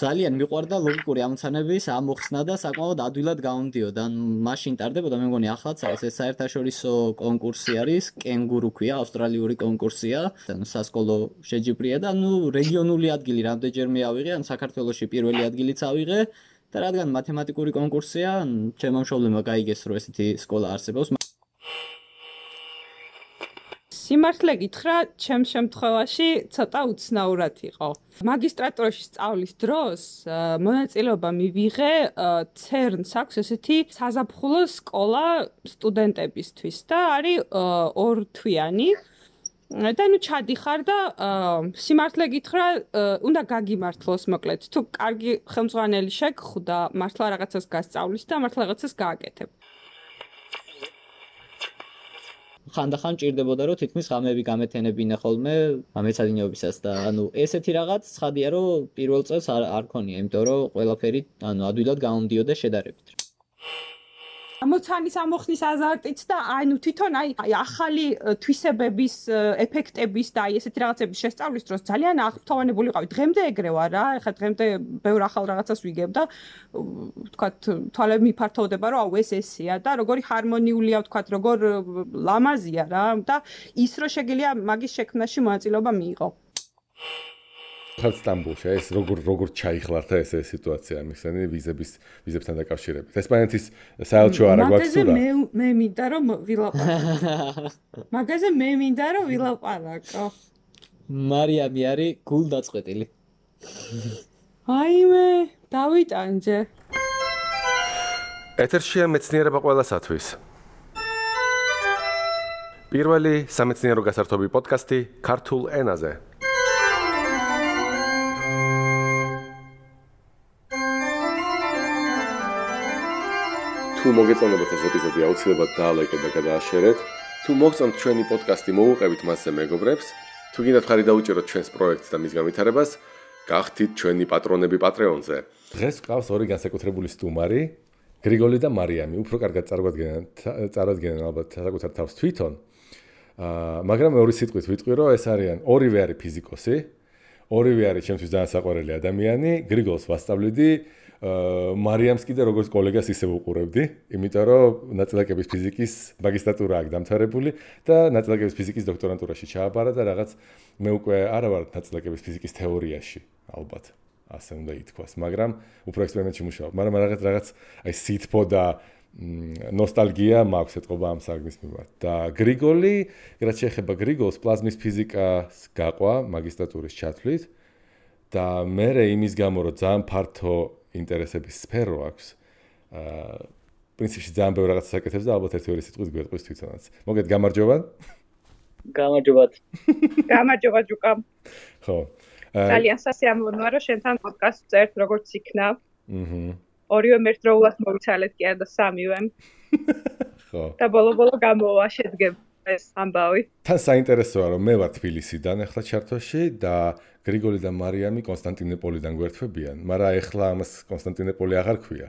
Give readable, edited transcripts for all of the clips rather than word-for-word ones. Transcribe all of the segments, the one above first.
ძალიან მიყვარდა ლოგიკური ამოცანების ამოხსნა და საკმაოდ ადვილად გამომდიოდა. მაშინ ტარდებოდა, მე მგონი ახლაც არის ეს საერთაშორისო კონკურსი არის, კენგურუ ქვია, ავსტრალიური კონკურსია, სასკოლო შეჯიბრია და რეგიონული ადგილი რამდენჯერმე ავიღე, საქართველოში პირველი ადგილიც ავიღე და რადგან მათემატიკური კონკურსია, ჩემმა მშობლებმა გაიგეს, რომ ესეთი სკოლა არსებობს. სიმართლე გითხრა, ჩემ შემთხვევაში ცოტა უცნაურად იყო. მაგისტრატურაში სწავლის დროს მონაწილეობა მივიღე CERN-ს აქვს ესეთი საზაფხულო სკოლა სტუდენტებისთვის და არის 2 თვიანი. და ჩადიხარ და სიმართლე გითხრა, უნდა გაგიმართლოს მოკლედ. თუ კარგი ხელმძღვანელი შეგხვდა, მართლა რაღაცას გასწავლის და მართლა რაღაცას გააკეთებ. ხანდახან ჭირდებოდა რომ თითქმის ღამეები გამეთენებინა ხოლმე მეცადინეობისას და ესეთი რაღაც ცხადია რომ პირველ წელს არ ქონია, იმიტომ რომ ყველაფერი ადვილად გამომდიოდა შედარებით. ამოცანის ამოხსნის აზარტიც და თვითონ ახალი თვისებების ეფექტების და ესეთი რაღაცების შესწავლის დროს ძალიან აღფრთოვანებული ვიყავი. დღემდე ეგრე ვარ რა, ეხლა დღემდე ბევრ ახალ რაღაცას ვიგებ და ვთქვათ თვალები მიფართოვდება რომ ეს ესეა და როგორი ჰარმონიულია ვთქვათ, როგორ ლამაზია რა და ის რომ შეგიძლია მაგის შექმნაში მონაწილეობა მიიღო. ხალხ სტამბოლში ეს როგორ ჩაიხლართა ეს სიტუაცია მიხსენი ვიზებთან დაკავშირებით. ესპანეთის საელჩო არა გვაქვს თუ რა? მე მინდა რომ ვილაპარაკო. მარიამი არის გულდაწყვეტილი. აიმე, დავიტანჯე. ეთერშია მეცნიერება ყველასათვის. პირველი სამეცნიერო გასართობი პოდკასტი ქართულ ენაზე. თუ მოგეწონებათ ეს ეპიზოდი, აუცილებლად დაალაიკეთ და გადააშერეთ. თუ მოგწონთ ჩვენი პოდკასტი, მოუყევით მასზე მეგობრებს. თუ გინდათ ხარი დაუჭიროთ ჩვენს პროექტს და მის განვითარებას, გახდით ჩვენი პატრონები Patreon-ზე. დღეს გვყავს ორი განსაკუთრებული სტუმარი, გრიგოლი და მარიამი. უფრო კარგად წარადგენენ ალბათ საკუთარ თავს თვითონ. მაგრამ ორი სიტყვით ვიტყვი, რომ ეს არიან ორივე არის ფიზიკოსი, ორივე არის ჩემთვის ძალიან საყვარელი ადამიანი. გრიგოლს ვასწავლიდი, მარიამს კიდე როგორც კოლეგას ისე ვუყურებდი, იმიტომ რომ ნაწილაკების ფიზიკის მაგისტრატურა აქვს დამთავრებული და ნაწილაკების ფიზიკის დოქტორანტურაში ჩააბარა და რაღაც მე უკვე არა ვარ ნაწილაკების ფიზიკის თეორიაში, ალბათ, ასე უნდა ითქვას, მაგრამ უფრო ექსპერიმენტში მუშაობ. მაგრამ რაღაც აი სითბო და ნოსტალგია მაქვს ეთყობა ამ საგნის მიმართ. და გრიგოლი, რაც შეეხება გრიგოლს, პლაზმის ფიზიკას გაყვა მაგისტრატურის ჩათვლით და მე იმის გამო რომ ძალიან ფართო ინტერესების სფერო აქვს. პრინციპში ძალიან ბევრ რაღაცას აკეთებს და ალბათ ერთი ორი სიტყვით გვეტყვის თვითონაც. მოგეთ გამარჯობა. გამარჯობათ. გამარჯობა ჯუკა. ხო. ძალიან სასიამოვნოა რომ შენთან პოდკასტს წერთ როგორც იქნა. ორივე ერთდროულად მოვიცალეთ კი არა და სამივე. ხო. და ბოლო გამოვა შედგება ეს ამბავი. თან საინტერესოა რომ მე ვარ თბილისიდან ახლა ჩართოში და გრიგოლი და მარიამი კონსტანტინოპოლიდან გვერდთვებიან, მაგრამ ახლა ამას კონსტანტინოპოლი აღარ ქვია.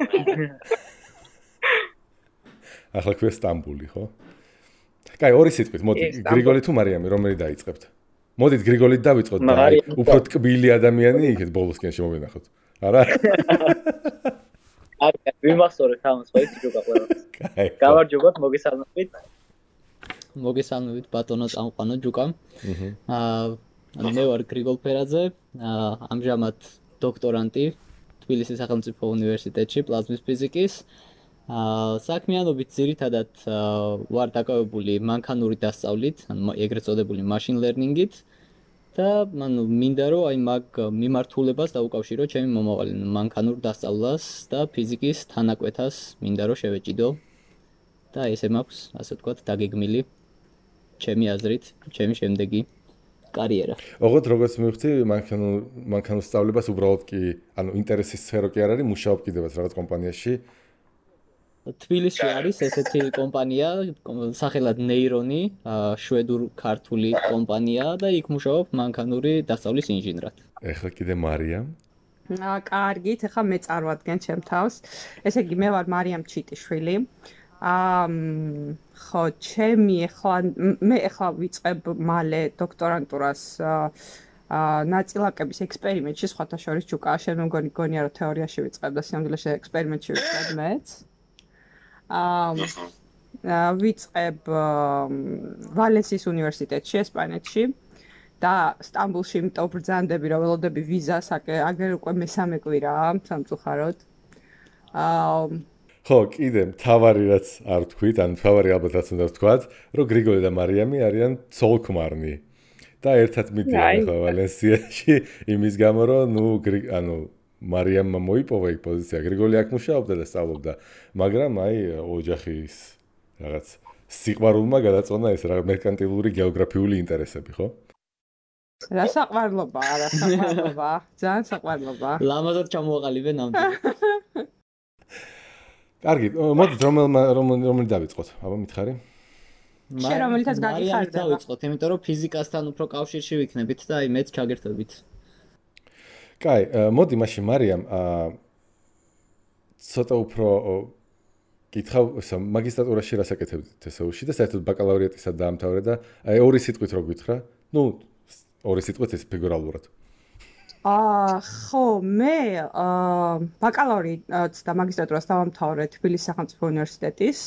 ახლა ქვია სტამბული, ხო? კაი, ორი სიტყვით, მოდი, გრიგოლი თუ მარიამი, რომელი დაიწყებთ? მოდით გრიგოლით დავიწყოთ და უფრო ტკბილი ადამიანი იქეთ ბოლოსკენ შემოვინახოთ. არა? აი, ვიმახსოვრეთ ამას, ხო იცი ჯოკა ყველა. გამარჯობათ, მოგესალმებით ბატონო წამყვანო ჯუკა. მე ვარ გრიგოლ ფერაძე, ამჟამად დოქტორანტი თბილისის სახელმწიფო უნივერსიტეტში პლაზმის ფიზიკის. საქმიანობით ძირითადად ვარ დაკავებული მანქანური დასწავლით, ეგრეთ წოდებული machine learning-ით და მინდა რომ აი მაგ მიმართულებას დაუკავშირო ჩემი მომავალი მანქანურ დასწავლას და ფიზიკის თანაკვეთას მინდა რომ შევეჭიდო და ესე მაქვს, ასე ვთქვათ, დაგეგმილი ჩემი აზრით, ჩემი შემდეგი კარიერა. ოღონდ როგორც მივხვდი, მანქანურ სწავლებას უბრალოდ კი, ინტერესის სფერო კი არ არის, მუშაობ კიდევაც რაღაც კომპანიაში. თბილისში არის ესეთი კომპანია, სახელად ნეირონი, შვედურ-ქართული კომპანია და იქ მუშაობ მანქანური დასწავლის ინჟინრად. ეხლა კიდე მარიამ. კარგით, ეხლა მე წარვადგენ ჩემ თავს. ესე იგი, მე ვარ მარიამ ჩიტიშვილი. ხო, მე ეხლა ვიწყებ მალე დოქტორანტურას ნაწილაკების ექსპერიმენტში სხვათა შორის ჯუკა შენ მგონია რომ თეორიაში ვიწყებ და სამდვილეში ექსპერიმენტში ვიწყებ მეც. ვიწყებ ვალენსიის უნივერსიტეტში ესპანეთში და სტამბულში იმიტომ ბრძანდები რომ ველოდები ვიზას აგერ უკვე მესამე კვირაა სამწუხაროდ. ხო, კიდე მთავარი რაც არ თქვით, ან მთავარი ალბათ რაც უნდა ვთქვათ, რომ გრიგოლი და მარიამი არიან ცოლ-ქმარნი. და ერთად მიდიან ხო ვალენსიაში იმის გამო რომ მარიამმა მოიპოვა იქ პოზიცია, გრიგოლი აქ მუშაობდა და სწავლობდა, მაგრამ ოჯახის რაღაც სიყვარულმა გადაწყვეტა ეს რაღაც მერკანტილური გეოგრაფიული ინტერესები, ხო? რა საყვარლობა, ძალიან საყვარლობა. ლამაზად ჩამოაყალიბე ნამდვილად. კარგი, მოდით რომელი დავიწყოთ? აბა მითხარი. შენ რომელიცაც გაგიხარდება. დავიწყოთ, იმიტომ რომ ფიზიკასთან უფრო კავშირში ვიქნებით და აი მეც ჩაგერთვებით. კაი, მოდი მაშინ მარიამ, ცოტა უფრო კითხავ, მაგისტრატურაში რას აკეთებდი TSU-ში და საერთოდ ბაკალავრიატისაც დაამთავრე და აი ორი სიტყვით რო გითხრა? ორი სიტყვით ეს ფიგურალურად. ხო, მე ბაკალავრიატს და მაგისტრატურას დავამთავრე თბილისის სახელმწიფო უნივერსიტეტის.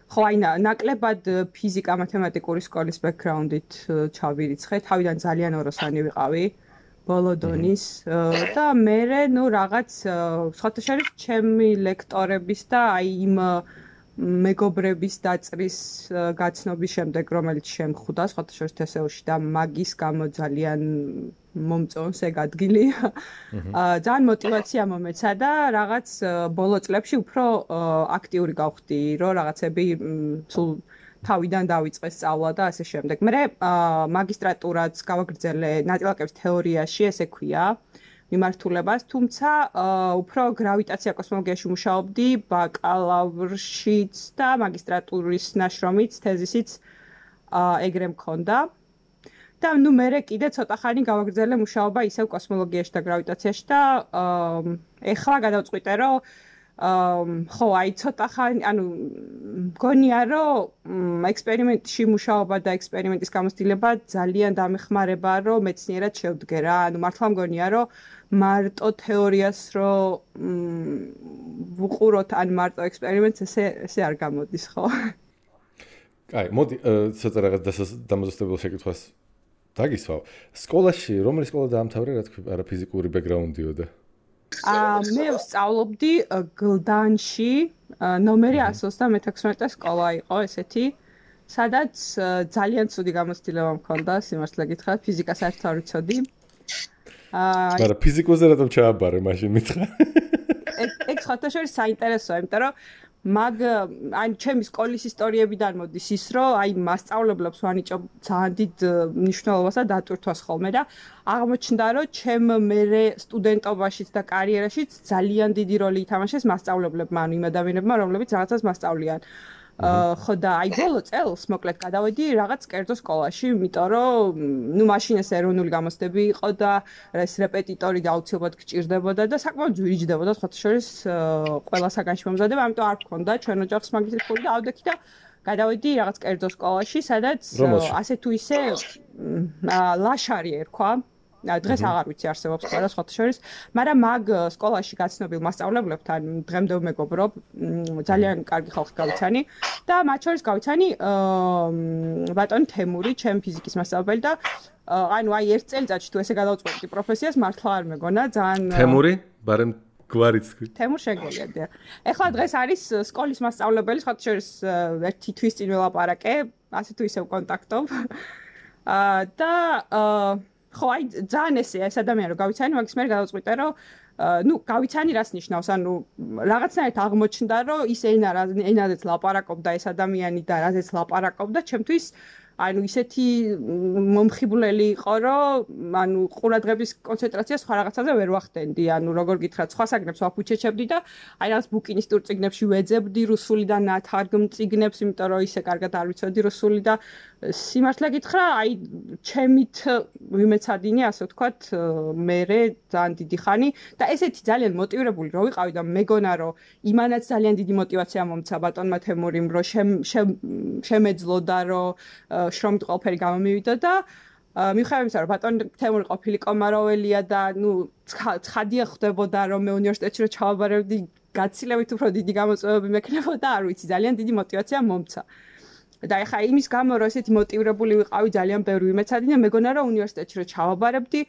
ხო, ნაკლებად ფიზიკა მათემატიკური სკოლის ბექგრაუნდით ჩავირიცხე, თავიდან ძალიან ოროსანი ვიყავი. ბოლო დონის და მე რაღაც სხვათა შორის ჩემი ლექტორების და აი იმ მეგობრების დაწრის გაცნობის შემდეგ რომელიც შემხვდა სხვათა შორის TSU-ში და მაგის გამო ძალიან მომწონს ეგ ადგილი. ძალიან მოტივაცია მომეცა და რაღაც ბოლო წლებში უფრო აქტიური გავხდი, რომ რაღაცები სულ თავიდან დავიწყე სწავლა და ასე შემდეგ. მე მაგისტრატურაც გავაგრძელე ნაწილაკების თეორიაში, ესე ქვია, მიმართულებას, თუმცა უფრო გრავიტაცია კოსმოლოგიაში მუშაობდი, ბაკალავრშიც და მაგისტრატურის ნაშრომიც, თეზისიც ეგრე მქონდა. და მე კიდე ცოტა ხანი გავაგრძელე მუშაობა ისევ კოსმოლოგიაში და გრავიტაციაში და ეხლა გადავწყვიტე, რომ ხო, აი ცოტა ხანი, მგონია, რომ ექსპერიმენტში მუშაობა და ექსპერიმენტის გამოცდილება ძალიან დამეხმარება, რომ მეცნიერად შევდგე რა. მართლა მგონია, რომ მარტო თეორიას ვუყუროთ, ან მარტო ექსპერიმენტს ესე არ გამოდის, ხო? კაი, მოდი ცოტა რაღაც დამოზუსტებელ შეკითხვას დაგისვავ. სკოლაში, რომელი სკოლა დაამთავრე, რა თქვი, არა ფიზიკური ბექგრაუნდიოდა? მე ვსწავლობდი გლდანში, ნომერი 136 სკოლა იყო ესეთი, სადაც ძალიან ცუდი გამოცდილება მქონდა, სიმართლე გითხრათ, ფიზიკას არც არ ვიცოდი. მაგრამ ფიზიკოზე რატომ ჩააბარე მაშინ მითხრა? ეგ სხვათა შორის საინტერესოა, იმიტომ რომ ჩემი სკოლის ისტორიებიდან მოდის ის, რომ აი მასწავლებლებს ვანიჭობ ძალიან დიდ მნიშვნელობას და დატვირთვას ხოლმე და აღმოჩნდა, რომ ჩემ მერე სტუდენტობაშიც და კარიერაშიც ძალიან დიდი როლი ითამაშეს მასწავლებლებმა, იმ ადამიანებმა, რომლებიც რაღაცას მასწავლიან. ხო და აი ბოლო წელს მოკლედ გადავედი რაღაც კერძო სკოლაში, იმიტომ რომ მაშინ ეს ეროვნული გამოცდები იყო და ეს რეპეტიტორი აუცილებლად გჭირდებოდა და საკმაოდ ძვირიჯდებოდა სხვათა შორის ყველა საგანში მომზადება, ამიტომ არ მქონდა ჩვენ ოჯახს მაგისტრის ფული და ავდექი და გადავედი რაღაც კერძო სკოლაში, სადაც ასე თუ ისე ლაშარი ერქვა. დღეს აღარ ვიცი არსებობს ყველა სხვათა შორის, მაგრამ მაგ სკოლაში გაცნობილ მასწავლებლებთან დღემდე ვმეგობრობ, ძალიან კარგი ხალხი გავიცანი და მათ შორის გავიცანი ბატონი თემური, ჩემი ფიზიკის მასწავლებელი და აი ერთ წელიწადში თუ ესე გადავწყვეტი პროფესიას, მართლა არ მეგონა, ძალიან თემური, ბარემ გვარიც თქვი. თემურ შეგელია. ეხლა დღეს არის სკოლის მასწავლებელი, სხვათა შორის ერთი თვის წინ ველაპარაკე, ასე თუ ისე ვკონტაქტობ. და ხო, აი ძალიან ესეა ეს ადამიანი რომ გავიცანი, მაგის მერე გადავწყვიტე რომ გავიცანი რას ნიშნავს, რაღაცნაირად აღმოჩნდა რომ ის ენაზეც ლაპარაკობდა ეს ადამიანი და რაზეც ლაპარაკობდა, ჩემთვის ისეთი მომხიბვლელი იყო, რომ ყურადღების კონცენტრაცია სხვა რაღაცაზე ვერ ვახდენდი, როგორ გითხრათ, სხვა საგნებს ვაფუჩეჩებდი და აი რაღაც ბუკინისტურ წიგნებში ვეძებდი რუსული და ნათარგმ წიგნებს, იმიტომ რომ ისე კარგად არ ვიცოდი რუსული და სიმართლე გითხრა, აი ჩემით ვიმეცადინე, ასე ვთქვათ, მერე ძალიან დიდი ხანი და ესეთი ძალიან მოტივირებული რო ვიყავი და მეგონა რომ იმანაც ძალიან დიდი მოტივაცია მომცა ბატონმა თემურიმ, რომ შემეძლოდა რომ შრომით ყველაფერი გამომივიდა და მიუხედავად იმისა, რომ ბატონ თემური ყოფილი კომაროველია და ცხადია ხდებოდა რომ მე უნივერსიტეტში რო ჩავაბარებდი გაცილებით უფრო დიდი გამოწვევები მექნებოდა, არ ვიცი, ძალიან დიდი мотиваცია მომცა. და ეხა იმის გამო რომ ესეთი мотивირებული ვიყავი ძალიან ბევრი ვიმეცადი და მეგონა რომ უნივერსიტეტში რო ჩავაბარებდი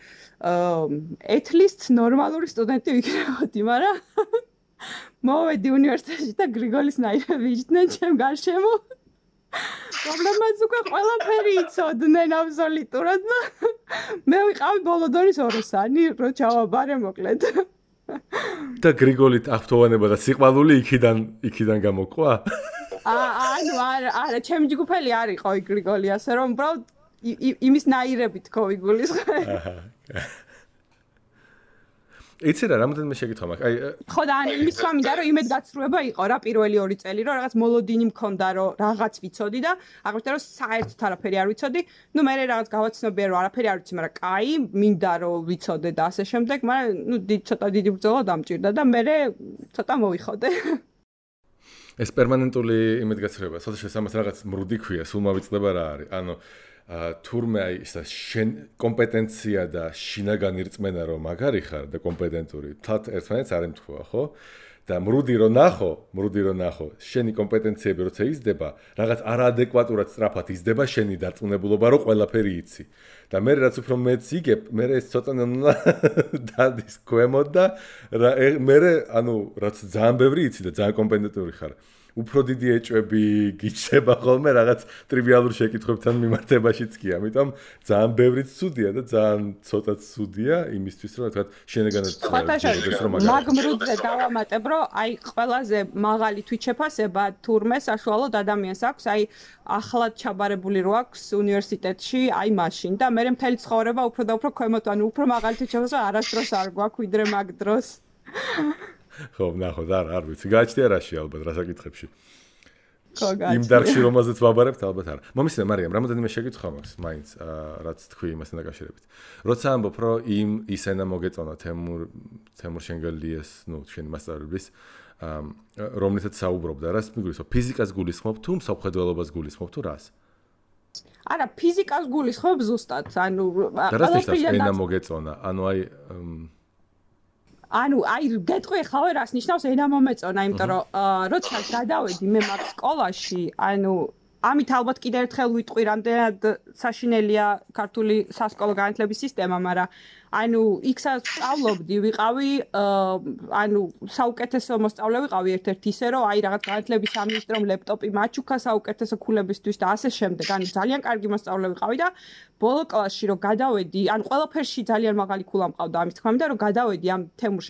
at least ნორმალური სტუდენტი ვიქნებოდი, მაგრამ მოვედი უნივერსიტეტში და გრიგოლის ნაირები იჯდნენ ჩემ გარშემო. პრობლემაც უკვე ყველაფერი იცოდნენ აბსოლუტურად და მე ვიყავი ბოლო დონის ოროსანი, რო ჩავაბარე მოკლედ. და გრიგოლით აღფრთოვანება და სიყვარული იქიდან გამოყვა? ანუ არა, ჩემი ჯგუფელი არ იყო გრიგოლი, ასე რომ უბრალოდ იმის ნაირები თქო იგულისხმე. იცი რა, რამოდენიმე შეკითხვა მაქვს. ხო და ან იმის თქმა მინდა რომ იმედგაცრუება იყო რა პირველი 2 წელი, რომ რაღაც მოლოდინი მქონდა, რომ რაღაც ვიცოდი და აღვნიშნე რომ საერთოდ არაფერი არ ვიცოდი. ნუ მე რაღაც გავაცნობია რომ არაფერი არ ვიცი, მაგრამ კაი, მინდა რომ ვიცოდე და ასე შემდეგ, მაგრამ ნუ ცოტა დიდი ბრძოლა დამჭირდა და მე ცოტა მოვიხოდე. ეს პერმანენტული იმედგაცრუება, სადაც ამას რაღაც მრუდი ქვია, სულ მოვიწყდება რა არის. ანუ თურმე აი ეს კომპეტენცია და შინაგანი რწმენა რომ მაგარი ხარ და კომპეტენტური, თათ ერთმანეთს არ ემთხვევა, ხო? და მრუდი რომ ნახო, შენი კომპეტენციები როცა იზრდება, რაღაც არაადეკვატურად სწრაფად იზრდება შენი დარწმუნებულობა, რომ ყველაფერი იცი. და მე რაც უფრო მეც იგებ, მე ეს ცოტა დადის ქვემოთ და მე ანუ რაც ძალიან ბევრი იცი და ძალიან კომპეტენტური ხარ. უფრო დიდი ეჭვები გიჩება ხოლმე რაღაც ტრივიალურ შეკითხვებთან მიმართებაშიც კი, ამიტომ ძალიან ბევრიც ცუდია და ძალიან ცოტაც ცუდია იმისთვის, რომ თქვა შენეგანად ხოთაშა მაგმრუდზე დავამატებ, რომ აი ყველაზე მაღალი თვითშეფასება თურმე საშუალოდ ადამიანს აქვს, აი ახლად ჩაბარებული რო აქვს უნივერსიტეტში, აი მაშინ და მე მთელი ცხოვრება უფრო და უფრო ქვემოთ, ანუ უფრო მაღალი თვითშეფასება არასდროს არ გვაქვს ვიდრე მაგ დროს. ხო, ნახოთ, არ ვიცი. გააჩნია რაში ალბათ რა საკითხებში. ხო, გააჩნია. იმ დარგში რომელზეც ვაბარებთ ალბათ არა. მომისმენ მარიამ, რამოდენიმე შეკითხვა მაქვს მაინც, რაც თქვი იმასთან დაკავშირებით. როცა ამბობ, რომ ის ენა მოგეწონა თემურ შენგელიას, ნუ შენი მასწავლებლის, რომლითაც საუბრობდა, რას მიგულისხმობ? ფიზიკას გულისხმობ თუ მსოფლმხედველობას გულისხმობ თუ რას? არა, ფიზიკას გულისხმობ ზუსტად, ანუ ყველაფერი ენა მოგეწონა, ანუ აი გეტყვი ხავე რას ნიშნავს ენა მომეწონა, იმიტომ რომ როცა გადავედი მე მაგ სკოლაში, ანუ ამით ალბათ კიდევ ერთხელ ვიტყვი, რამდენად საშინელია ქართული სასკოლო განათლების სისტემა, მაგრამ ანუ იქსაც სწავლობდი, ვიყავი ანუ საუკეთესო მოსწავლე ვიყავი ერთ-ერთი ისე რომ აი რაღაც განათლების სამინისტრომ ლეპტოპი მაჩუქა საუკეთესო ქულებისთვის და ასე შემდეგ. ანუ ძალიან კარგი მოსწავლე ვიყავი და ბოლო კლასში რომ გადავედი, ანუ ყველაფერში ძალიან მაღალი ქულა მყავდა ამის თქმა მინდა რომ გადავედი ამ თემურ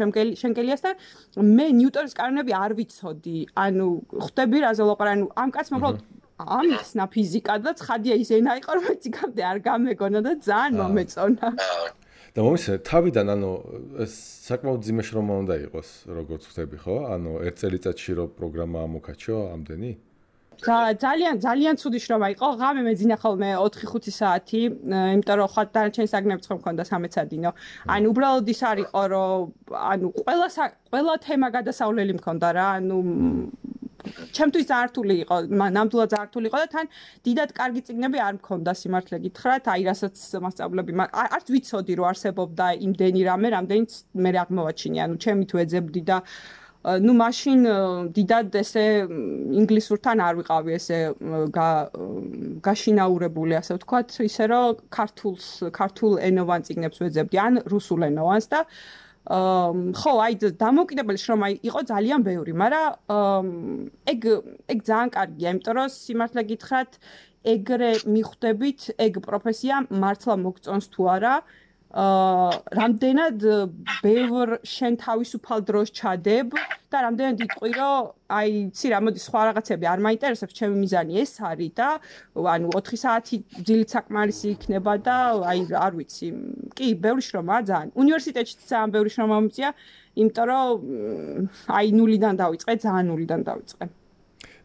შენგელიასთან, მე ნიუტონის კანონები არ ვიცოდი. ანუ ხვდები რაზე ვლაპარაკი, ანუ ამ კაცმა უბრალოდ ამიხსნა ფიზიკა და ცხადია ის ენა იყო რომ მეციკამდე არ გამეგონა და ძალიან მომეწონა. და მომისმენ თავიდან ანუ საკმაოდ ძიმე შრომა უნდა იყოს, როგორც ხვდები, ხო? ანუ ერთ წელიწადში რო პროგრამა ამოქაჩო ამდენი? ძალიან ცუდი შრომა იყო. ღამე მეძინა ხოლმე 4-5 საათი, იმიტომ რომ ხა დანარჩენი საგნებიც ხომ მქონდა სამეცადინო. ანუ უბრალოდ ის არ იყო, რომ ანუ ყველა თემა გადასავლელი მქონდა რა, ანუ ჩემთვის ძართული იყო, ნამდვილად ძართული იყო და თან დიდად კარგი წიგნები არ მქონდა სიმართლე გითხრათ, აი რასაც მასწავლები, არც ვიცოდი რომ არსებობდა იმდენი რამე, რამდენიც მე აღმოვაჩინე, ანუ ჩემი თუ ეძებდი და ნუ მაშინ დიდად ესე ინგლისურთან არ ვიყავი ესე გაშინაურებული, ასე ვთქვათ, ისე რომ ქართულ ენოვან წიგნებს ვეძებდი, ან რუსულ ენოვანს და ხო, აი დამოუკიდებელი შრომა იყო ძალიან ბევრი, მაგრამ ეგ ძალიან კარგია, იმიტომ რომ სიმართლე გითხრათ, ეგრე მიხვდებით, ეგ პროფესია მართლა მოგწონს თუ არა, რამდენად ბევრ შენ თავისუფალ დროს ჩადებ და რამდენად იტყვი, რომ აი, ცი რა, მოდი სხვა რაღაცები არ მაინტერესებს, ჩემი მიზანი ეს არის და ანუ 4 საათი ძილით საკმარისი იქნება და აი, არ ვიცი. კი, ბევრი შრომაა ძალიან. უნივერსიტეტში ძალიან ბევრი შრომა მომწია, იმიტომ რომ აი ნულიდან დავიწყე, ძალიან ნულიდან დავიწყე.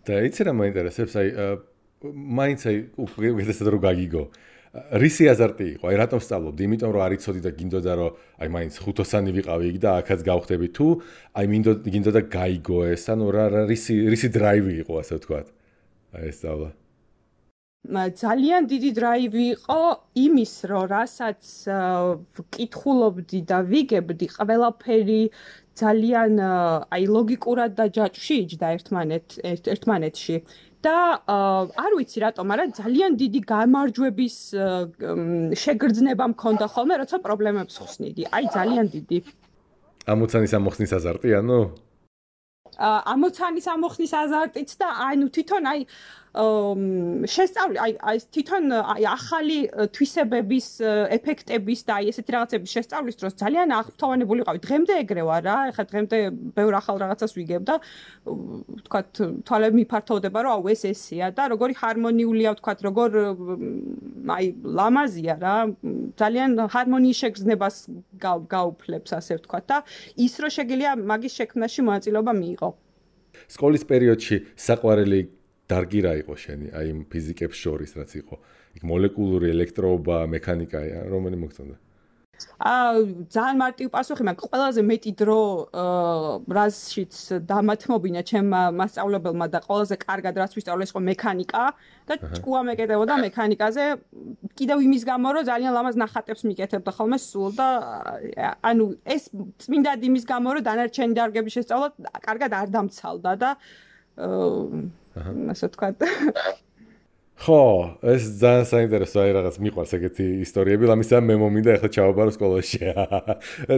და იცი რა მაინტერესებს, აი მაინც აი უკეთესად რო გაგიგო. რისი აზარტი იყო? აი რატომ სწავლობდი? იმიტომ რომ არ იცოდი და გინდოდა რომ აი მაინც ხუთოსანი ვიყავი იქ და აქაც გავხდები თუ აი გინდოდა გაიგო ეს, ანუ რა რისი დრაივი იყო, ასე ვთქვათ. აი ეს სწავლა. ძალიან დიდი დრაივი იყო იმის, რომ რასაც ვკითხულობდი და ვიგებდი, ყველაფერი ძალიან აი ლოგიკურად და ჯაჭვში იჯდა ერთმანეთში. და არ ვიცი რატომ, მაგრამ ძალიან დიდი გამარჯვების შეგრძნება მქონდა ხოლმე, როცა პრობლემებს ხსნიდი. აი ძალიან დიდი. ამოცანის ამოხსნის აზარტი, ანუ ამოცანის ამოხსნის აზარტიც და ანუ თვითონ აი შესწავლი აი თვითონ აი ახალი თვისებების ეფექტების და აი ესეთი რაღაცების შესწავლის დროს ძალიან აღფრთოვანებული ვიყავი. დღემდე ეგრე ვარ რა. ეხლა დღემდე ბევრ ახალ რაღაცას ვიგებ და ვთქვათ თვალები მიფართოვდება რომ აუ ეს ესეა და როგორი ჰარმონიულია ვთქვათ როგორ აი ლამაზია რა. ძალიან ჰარმონიის შეგრძნებას გაუფლებს ასე ვთქვათ და ის რომ შეგიძლია მაგის შექმნაში მონაწილეობა მიიღო. სკოლის პერიოდში საყვარელი დარგი რა იყო შენი, აი იმ ფიზიკებს შორის რაც იყო? იქ მოლეკულური ელექტროობა, მექანიკა, რომელი მოგწონდა? ძალიან მარტივი პასუხი მაქვს. ყველაზე მეტი დრო რაზშიც დამათმობინა ჩემმა მასწავლებელმა და ყველაზე კარგად რაც ვისწავლე იყო მექანიკა და ჭკუა მეკეთებოდა მექანიკაზე. კიდევ იმის გამო რომ ძალიან ლამაზ ნახატებს მიკეთებდა ხოლმე სულ და ანუ ეს წმინდად იმის გამო რომ დანარჩენი დარგების შესწავლა კარგად არ დამცალდა და ასე ვთქვათ. ხო, ეს ძალიან საინტერესო აი რაღაც მიყვარს ეგეთი ისტორიები, ამისა მე მომინდა ახლა ჩავაბარო სკოლაში.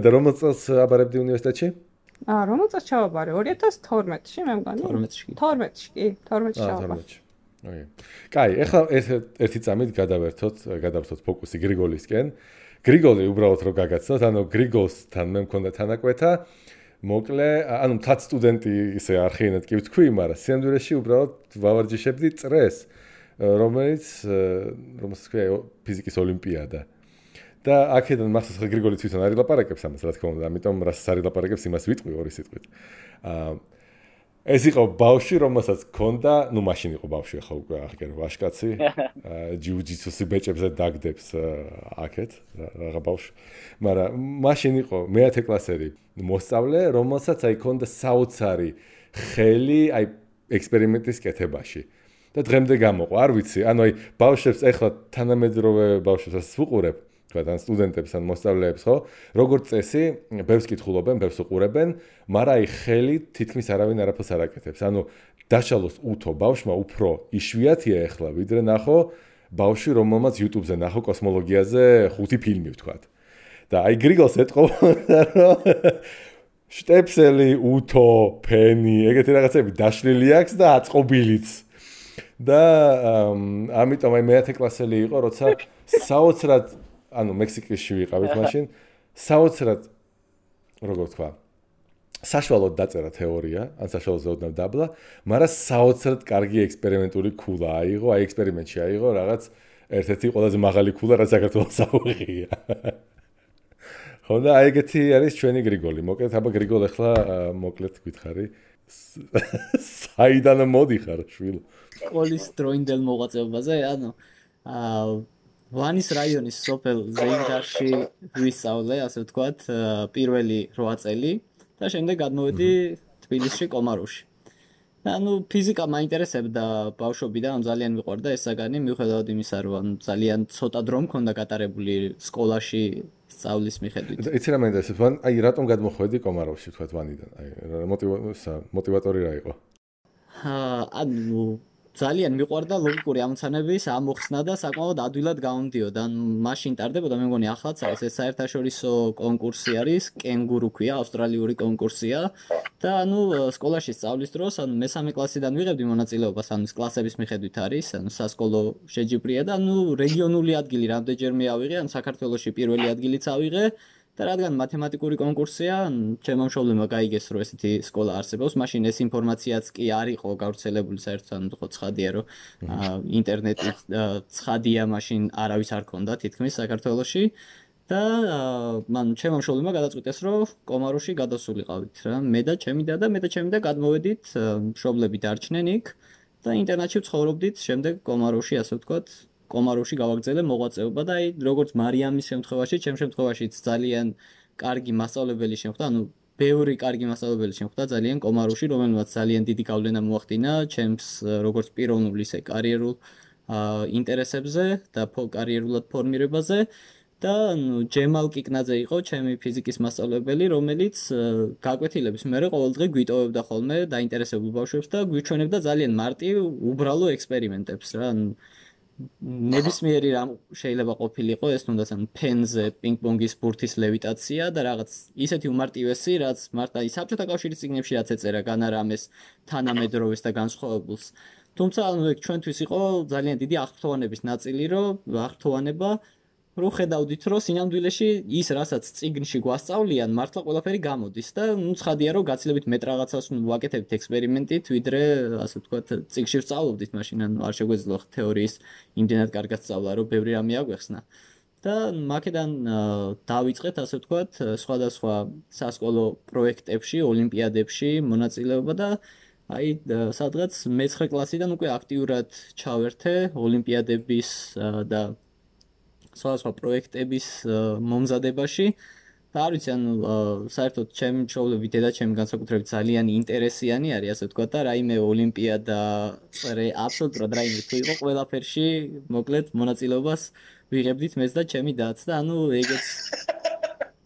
და რომელ წელს აბარებდი უნივერსიტეტში? რომელ წელს ჩავაბარე? 2012-ში მე მგონი. 12-ში კი, 12-ში ჩავაბარე. ოკეი. კაი, ახლა ერთი წამით გადავერთოთ ფოკუსი გრიგოლისკენ. გრიგოლი უბრალოდ რო გაგაცნოთ, ანუ გრიგოლსთან მე მქონდა თანაკვეთა. მოკლე, ანუ მთად სტუდენტი ისე არხიენად კი ვთქვი, მაგრამ სიამდვილეში უბრალოდ ვავარჯიშებდი წრეს, რომელიც ქვია ფიზიკის ოლიმპიადა. და აქედან მახსოვს ხა გრიგოლი თვითონ არ ილაპარაკებს ამას, რა თქმა უნდა, ამიტომ რასაც არ ილაპარაკებს იმას ვიტყვი ორი სიტყვით. ეს იყო ბავშვი, რომელსაც ჰქონდა, ნუ მაშინ იყო ბავშვი, ახლა უკვე აღგერო ვაშკაცი, ჯიუ-ჯიტსუსი ბეჭებზე დაგდებს აქეთ, რაღა ბავშვი. მაგრამ მაშინ იყო მე-10 კლასელი მოსწავლე, რომელსაც აი ჰქონდა საოცარი ხელი აი ექსპერიმენტის კეთებაში. და დღემდე გამოყვა, არ ვიცი, ანუ აი ბავშვებს ეხლა თანამედროვე ბავშვებს ვუყურებ, ან სტუდენტებს ან მოსწავლეებს, ხო? როგორც წესი, ბევრს კითხულობენ, ბევრს უყურებენ, მაგრამ აი ხელი თითქმის არავინ არაფერს არ აკეთებს. ანუ დაშალოს უთო ბავშვმა უფრო იშვიათია ეხლა, ვიდრე ნახო ბავშვი, რომელმაც YouTube-ზე ნახო კოსმოლოგიაზე 5 ფილმი ვთქვათ. და აი გრიგოლს ეტყობოდა, რომ შტეპსელი, უთო, ფენი, ეგეთი რაღაცები დაშლილი აქვს და აწყობილიც. და ამიტომ აი მე-10 კლასელი იყო, როცა საოცრად ანუ მექსიკაში ვიყავით მაშინ, საოცრად როგორ ვთქვა, საშუალოდ დაწერა თეორია, ან საშუალოდ ოდნავ დაბლა, მაგრამ საოცრად კარგი ექსპერიმენტული ქულა აიღო, აი ექსპერიმენტში აიღო რაღაც ერთ-ერთი ყველაზე მაღალი ქულა, რაც საქართველოს აუღია. ხო და აი ეგეთი არის ჩვენი გრიგოლი. მოკლედ, აბა გრიგოლ ახლა მოკლედ გითხარი. საიდან მოდიხარ, შვილო? სკოლის დროინდელ მოღვაწეობაზე, ანუ ვანის რაიონის სოფელ ზეინდარში ვისწავლე, ასე ვთქვათ, პირველი 8 წელი და შემდეგ გადმოვედი თბილისში კომაროვში. ანუ ფიზიკა მაინტერესებდა ბავშვობიდან, ძალიან მიყვარდა ეს საგანი, მიუხედავად იმისა, რომ ძალიან ცოტა დრო მქონდა გატარებული სკოლაში სწავლის მიხედვით. იცი რა მაინტერესებს, ვან აი რატომ გადმოხვედი კომაროვში, ვთქვათ, ვანიდან? აი მოტივატორი რა იყო? ანუ ძალიან მიყვარდა ლოგიკური ამოცანების ამოხსნა და საკმაოდ ადვილად გამომდიოდა. ან მაშინ ტარდებოდა, მე მგონი ახლაც არის ეს საერთაშორისო კონკურსი არის, კენგურუ ქვია, ავსტრალიური კონკურსია და ანუ სკოლაში სწავლის დროს, ანუ მე-3 კლასიდან ვიღებდი მონაწილეობას, ანუ კლასების მიხედვით არის, ანუ სასკოლო შეჯიბრია და ანუ რეგიონული ადგილი რამდენჯერმე ავიღე, ან საქართველოში პირველი ადგილიც ავიღე. და რადგან მათემატიკური კონკურსია, ჩემო მშობლებმა გაიგეს, რომ ესეთი სკოლა არსებობს, მაშინ ეს ინფორმაციაც კი არ იყო გავრცელებული საერთოდ, ანუ ხო ცხადია, რომ ინტერნეტი ცხადია, მაშინ არავის არ ქონდა თითქმის საქართველოში და მან ჩემო მშობლებმა გადაწყვიტეს, რომ კომაროვში გადასულიყავით რა. მე და ჩემი და გადმოვედით, მშობლები დარჩნენ იქ და ინტერნატში ვცხოვრობდით, შემდეგ კომაროვში, ასე ვთქვათ, კომაროვში გავაგრძელე მოღვაწეობა და აი როგორც მარიამის შემთხვევაში, ჩემ შემთხვევაშიც ძალიან კარგი მასწავლებელი შემხვდა, ანუ ბევრი კარგი მასწავლებელი შემხვდა ძალიან კომაროვში, რომელმაც ძალიან დიდი გავლენა მოახდინა ჩემს როგორც პიროვნულ ისე კარიერულ ინტერესებზე და კარიერულად ფორმირებაზე და ჯემალ კიკნაძე იყო ჩემი ფიზიკის მასწავლებელი, რომელიც გაკვეთილების მერე ყოველდღე გვიტოვებდა ხოლმე დაინტერესებულ ბავშვებს და გვიჩვენებდა ძალიან მარტივ უბრალო ექსპერიმენტებს რა. ნებისმიერი რამ შეიძლება ყოფილიყო ეს თუნდაც ფენზე პინგ-პონგის ბურთის ლევიტაცია და რაღაც ისეთი უმარტივესი, რაც მარტო საბჭოთა კავშირის წიგნებში რაც ეწერა განარამეს თანამედროვეს და განსხვავებულს. თუმცა ეგ ჩვენთვის იყო ძალიან დიდი აღფრთოვანების ნაწილი, რომ ხედავდით, რომ სინამდვილეში ის, რასაც წიგნში გვასწავლიან, მართლა ყველაფერი გამოდის და ცხადია, რომ გაცილებით მეტ რაღაცას ვაკეთებთ ექსპერიმენტით, ვიდრე, ასე ვთქვათ, წიგნში ვსწავლობდით, მაშინ არ შეგვეძლო თეორიის იმდენად კარგად სწავლა, რომ ბევრი რამე აგვეხსნა. და მაქედან დავიწყეთ, ასე ვთქვათ, სხვადასხვა სასკოლო პროექტებში, ოლიმპიადებში მონაწილეობა და სადღაც მე-9 კლასიდან უკვე აქტიურად ჩავერთე ოლიმპიადების და სხვადასხვა პროექტების მომზადებაში და არ ვიცი, საერთოდ ჩემი მშობლები, დედაჩემი განსაკუთრებით ძალიან ინტერესიანი არის, ასე ვთქვათ, და რაიმე ოლიმპიადა წრე აბსოლუტურად რაიმე თუ იყო, ყველაფერში მოკლედ მონაწილეობას ვიღებდით მეც და ჩემი დაც და ეგეც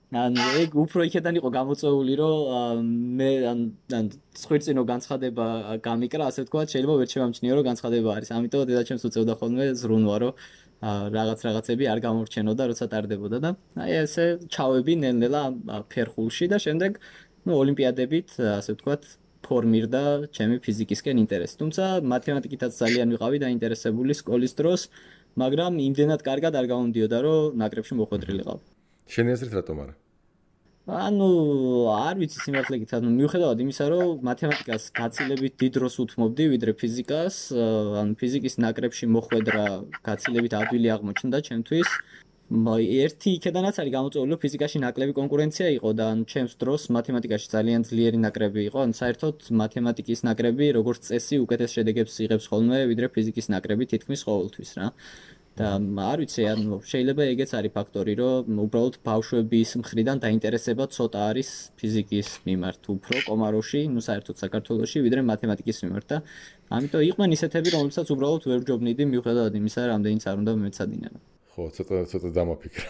ეგ უფრო იქიდან იყო გამოწვეული, რომ მე ხვირწინო განცხადება გამიკრა, ასე ვთქვათ, შეიძლება ვერ შევამჩნიო, რომ განცხადება არის. ამიტომ დედაჩემს უწევდა ხოლმე ზრუნვა, რომ რაღაცები არ გამორჩენოდა, როცა ტარდებოდა და ესე ჩავები ნელ-ნელა ფერხულში და შემდეგ ოლიმპიადებით, ასე ვთქვათ, ფორმირდა ჩემი ფიზიკისკენ ინტერესი. თუმცა მათემატიკითაც ძალიან ვიყავი დაინტერესებული სკოლის დროს, მაგრამ იმდენად კარგად არ გამომდიოდა, რომ ნაკრებში მოხვედრილიყავ. შენი აზრით რატომ არა? არ ვიცი სიმართლე გითხრათ, მიუხედავად იმისა, რომ მათემატიკას გაცილებით დიდ დროს უთმობდი, ვიდრე ფიზიკას, ფიზიკის ნაკრებში მოხვედრა გაცილებით ადვილი აღმოჩნდა ჩემთვის. ერთი იქედანაც არის გამოწვეული, რომ ფიზიკაში ნაკლები კონკურენცია იყო და ჩემს დროს მათემატიკაში ძალიან ძლიერი ნაკრები იყო, საერთოდ მათემატიკის ნაკრები როგორც წესი უკეთეს შედეგებს იღებს ხოლმე, ვიდრე ფიზიკის ნაკრები თითქმის ყოველთვის რა. და არ ვიცი, შეიძლება ეგეც არის ფაქტორი, რომ უბრალოდ ბავშვების მხრიდან დაინტერესება ცოტა არის ფიზიკის მიმართ, უფრო კომაროში, საერთოდ საქართველოში, ვიდრე მათემატიკის მიმართ და ამიტომ იყვნენ ისეთები, რომლებსაც უბრალოდ ვერ ვჯობნიდი, მიუხედავად იმისა, რამდენიც არ უნდა მეცადინებო. ხო, ცოტა დამაფიქრა.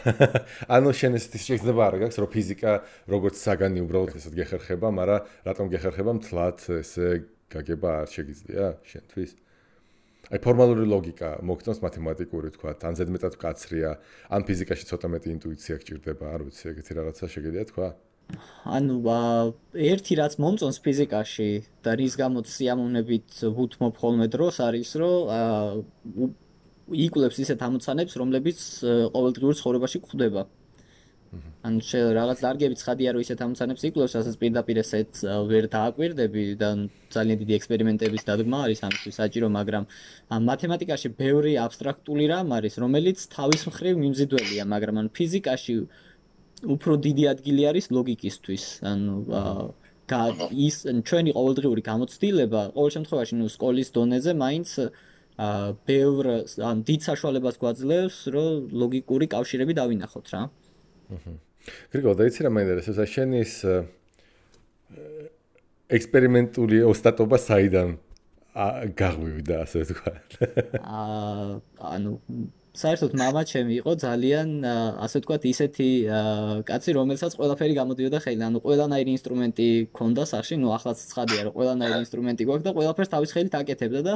შენ ესეთი შეიძლება არ გაქვს, რომ ფიზიკა როგორც საგანი უბრალოდ ესეთ გეხერხება, მაგრამ რატომ გეხერხება მთლად ესე გაგება არ შეგიძლია შენთვის? ფორმალური ლოგიკა მოგწონს მათემატიკური თქვა, ან ზედმეტად კაცრია, ან ფიზიკაში ცოტა მეტი ინტუიცია გჭირდება, არ ვიცი, ეგეთი რაღაცა შეგიძლია თქვა? ერთი რაც მომწონს ფიზიკაში და რის გამოც სიამოვნებით ვუთმობ ხოლმე დროს არის, რომ იკვლევს ისეთ ამოცანებს, რომლებიც ყოველდღიურ ცხოვრებაში გვხვდება. რაღაც დარგებით ცხადია, რომ ისეთ ამოცანებს იკვლევს, რასაც პირდაპირ ესეც ვერ დააკვირდები და ძალიან დიდი ექსპერიმენტების დადგმა არის ამისთვის საჭირო, მაგრამ მათემატიკაში ბევრი აბსტრაქტული რამ არის, რომელიც თავის მხრივ მიმზიდველია, მაგრამ ფიზიკაში უფრო დიდი ადგილი არის ლოგიკისთვის. ის ჩვენი ყოველდღიური გამოცდილება, ყოველ შემთხვევაში, სკოლის დონეზე მაინც ბევრ დიდ საშუალებას გვაძლევს, რომ ლოგიკური კავშირები დავინახოთ რა. გრიგოლ, დაიცი რა მაინტერესებს, შენის ექსპერიმენტული ოსტატობა საიდან გაღვივდა, ასე ვთქვათ? საერთოდ მამა ჩემი იყო ძალიან, ასე ვთქვათ, ისეთი კაცი, რომელსაც ყველაფერი გამოდიოდა ხელიდან, ყველანაირი ინსტრუმენტი ქონდა სახში, ახლაც ცხადია, რომ ყველანაირი ინსტრუმენტი გვაქვს და ყველაფერს თავის ხელით აკეთებდა და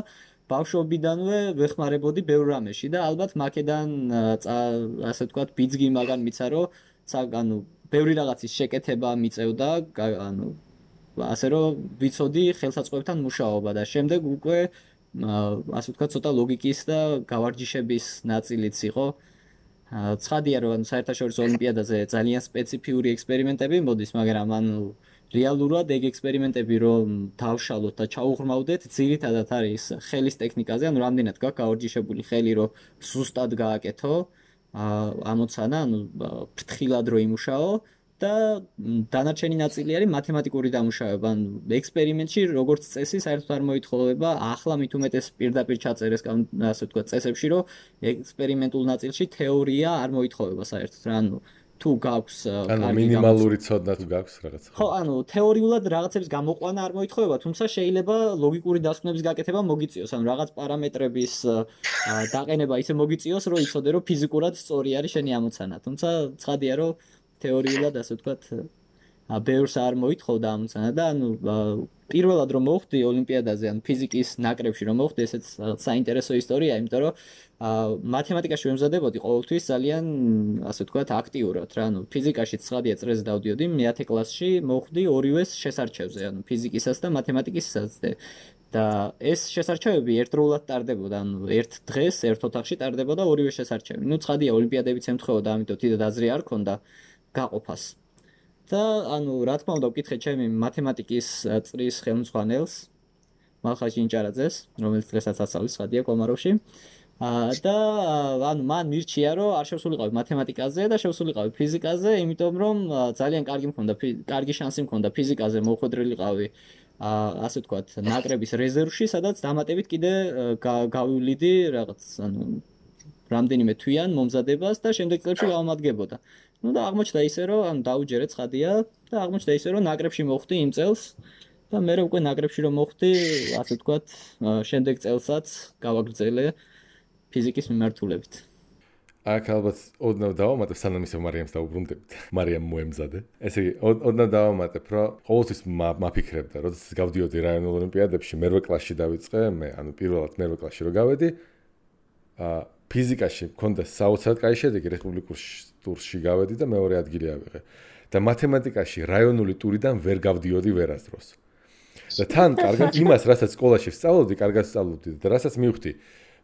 ბავშვობიდანვე ვეხმარებოდი ბევრ რამეში და ალბათ მაქედან ასე ვთქვათ, ბიძგი მაგან მიცა, რომ ბევრი რაღაცის შეკეთება მიწევდა, ასე რომ ვიცოდი ხელსაწყოებთან მუშაობა და შემდეგ უკვე ასე ვთქვათ, ცოტა ლოგიკის და გავარჯიშების ნაწილიც იყო. ცხადია, რომ საერთაშორისო ოლიმპიადაზე ძალიან სპეციფიური ექსპერიმენტები მოდის, მაგრამ რეალურად ეგ ექსპერიმენტები რომ დავშალოთ და ჩაუღრმავდეთ, ძირითადად არის ხელის ტექნიკაზე, რამდენად გაქვს გავარჯიშებული ხელი, რომ ზუსტად გააკეთო ამოცანა, ფრთხილად რო იმუშაო და დანარჩენი ნაწილი არის მათემატიკური დამუშავება. ექსპერიმენტში როგორც წესი საერთოდ არ მოითხოვება, ახლა მით უმეტეს პირდაპირ ჩაწერეს, ასე ვთქვათ, წესებში, რომ ექსპერიმენტულ ნაწილში თეორია არ მოითხოვება საერთოდ რა. თუ გაქვს ანუ მინიმალური ცოდნა თუ გაქვს რაღაც. ხო, ანუ თეორიულად რაღაცების გამოყვანა არ მოითხოვება, თუმცა შეიძლება ლოგიკური დასკვნების გაკეთება მოგიწიოს, ანუ რაღაც პარამეტრების დაყენება ისე მოგიწიოს, რომ იცოდე, რომ ფიზიკურად სწორი არის შენი ამოცანა. თუმცა ცხადია, რომ თეორიულად ასე ვთქვათ ბევრს არ მოითხოვდა ამოცანა და ანუ პირველად რომ მოხვდი ოლიმპიადაზე, ანუ ფიზიკის ნაკრებში რომ მოხვდი, ესეც საინტერესო ისტორია, იმიტომ რომ მათემატიკაში ვემზადებოდი ყოველთვის ძალიან ასე ვთქვათ აქტიურად რა, ანუ ფიზიკაში 9 წრეზე დავდიოდი, მე-10 კლასში მოხვდი ორივეს შესარჩევზე, ანუ ფიზიკისაც და მათემატიკასაც და ეს შესარჩევები ერთდროულად ტარდებოდა, ანუ ერთ დღეს ერთ ოთახში ტარდებოდა ორივე შესარჩევი. ნუ ცხადია ოლიმპიადებიც ემთხვეოდა, ამიტომ თვითონ აზრი არ ქონდა გაყოფას. და ანუ რა თქმა უნდა ვკითხე ჩემი მათემატიკის წრის ხელმძღვანელს მალხაზ ჯინჭარაძეს, რომელიც დღესაც ასწავლის ხადია კომაროვში. და ანუ მან მირჩია რომ არ შევსულიყავი მათემატიკაზე და შევსულიყავი ფიზიკაზე, იმიტომ რომ ძალიან კარგი შანსი მქონდა ფიზიკაზე მოხვედრილიყავი ასე ვთქვათ ნაკრების რეზერვში, სადაც დამატებით კიდე გავივლიდი რაღაც ანუ რამდენიმე თვიან მომზადებას და შემდეგ წლებში გავამადგებოდა. Ну და აღმოჩნდა ისე რომ ანუ დაუჯერე ცხადია და აღმოჩნდა ისე რომ ნაკრებში მოხვდი იმ წელს და მე უკვე ნაკრებში რომ მოხვდი ასე ვთქვათ შემდეგ წელსაც გავაგრძელე ფიზიკის მიმართულებით. აქ ალბათ ოდნავ დავამატებ სანამ ისე მარიამს დაუბრუნდებით. მარიამ მოემზადე. ესე იგი ოდნავ დავამატებ რომ ყოველთვის მაფიქრებდა როდესაც გავდიოდი რაიონულ ოლიმპიადებში მერვე კლასში დავიწყე მე ანუ პირველად მერვე კლასში რო გავედი ფიზიკაში მქონდა საოცრად კაი შედეგი რესპუბლიკურ ტურში გავედი და მეორე ადგილი ავიღე და მათემატიკაში რაიონული ტურიდან ვერ გავდიოდი ვერასდროს და თან კარგად იმას რასაც სკოლაში ვსწავლობდი კარგად ვსწავლობდი და რასაც მივხვდი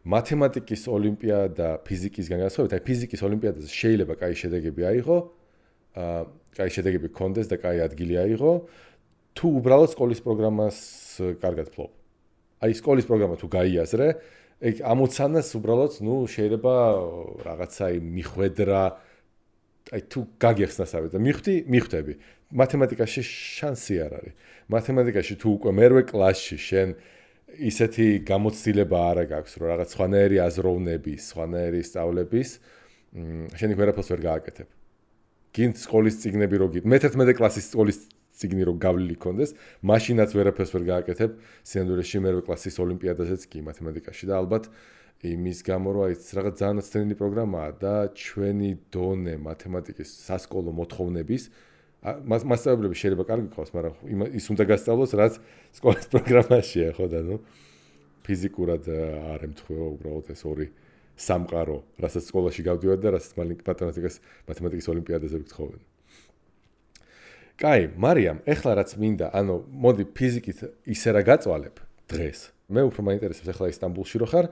მათემატიკის ოლიმპიადა ფიზიკისგან განსხვავებით აი ფიზიკის ოლიმპიადაზე შეიძლება კაი შედეგები აიღო კაი შედეგები გქონდეს და კაი ადგილი აიღო თუ უბრალოდ სკოლის პროგრამას კარგად ფლობ აი სკოლის პროგრამა თუ გაიაზრე ეგ ამოცანას უბრალოდ ნუ შეიძლება რაღაცა მიხვედრა აი თუ გაგიხსნასავე და მიხვდები მათემატიკაში შანსი არ არის მათემატიკაში თუ უკვე მერვე კლასში შენ ისეთი გამოცდილება არ გაქვს რომ რაღაც სხვანაირი აზროვნების სხვანაირი სწავლების შენ ვერაფერს ვერ გააკეთებ გინდ სკოლის წიგნები რო გიგ მე-11 კლასის სკოლის წიგნი რო გავლილი კონდეს მაშინაც ვერაფერს ვერ გააკეთებ სინამდვილეში მერვე კლასის ოლიმპიადაზეც კი მათემატიკაში და ალბათ იმის გამო რომ აი რაღაც ძალიან ნაცვლად პროგრამაა და ჩვენი დონე მათემატიკის სასკოლო მოთხოვნების მასწავლებლები შეიძლება კარგი ყავს, მაგრამ ის უნდა გასწავლოს, რაც სკოლის პროგრამაშია, ხო და ნუ ფიზიკურად არ ემთხვევა უბრალოდ ეს ორი სამყარო, რასაც სკოლაში გავდივართ და რასაც მათემატიკის ოლიმპიადაზე ვგთხოვენ. კაი, მარიამ, ეხლა რაც მინდა, ანუ მოდი ფიზიკით ისე რა გაწვალებ დღეს. მე უფრო მაინტერესებს ეხლა ისტანბულში რო ხარ.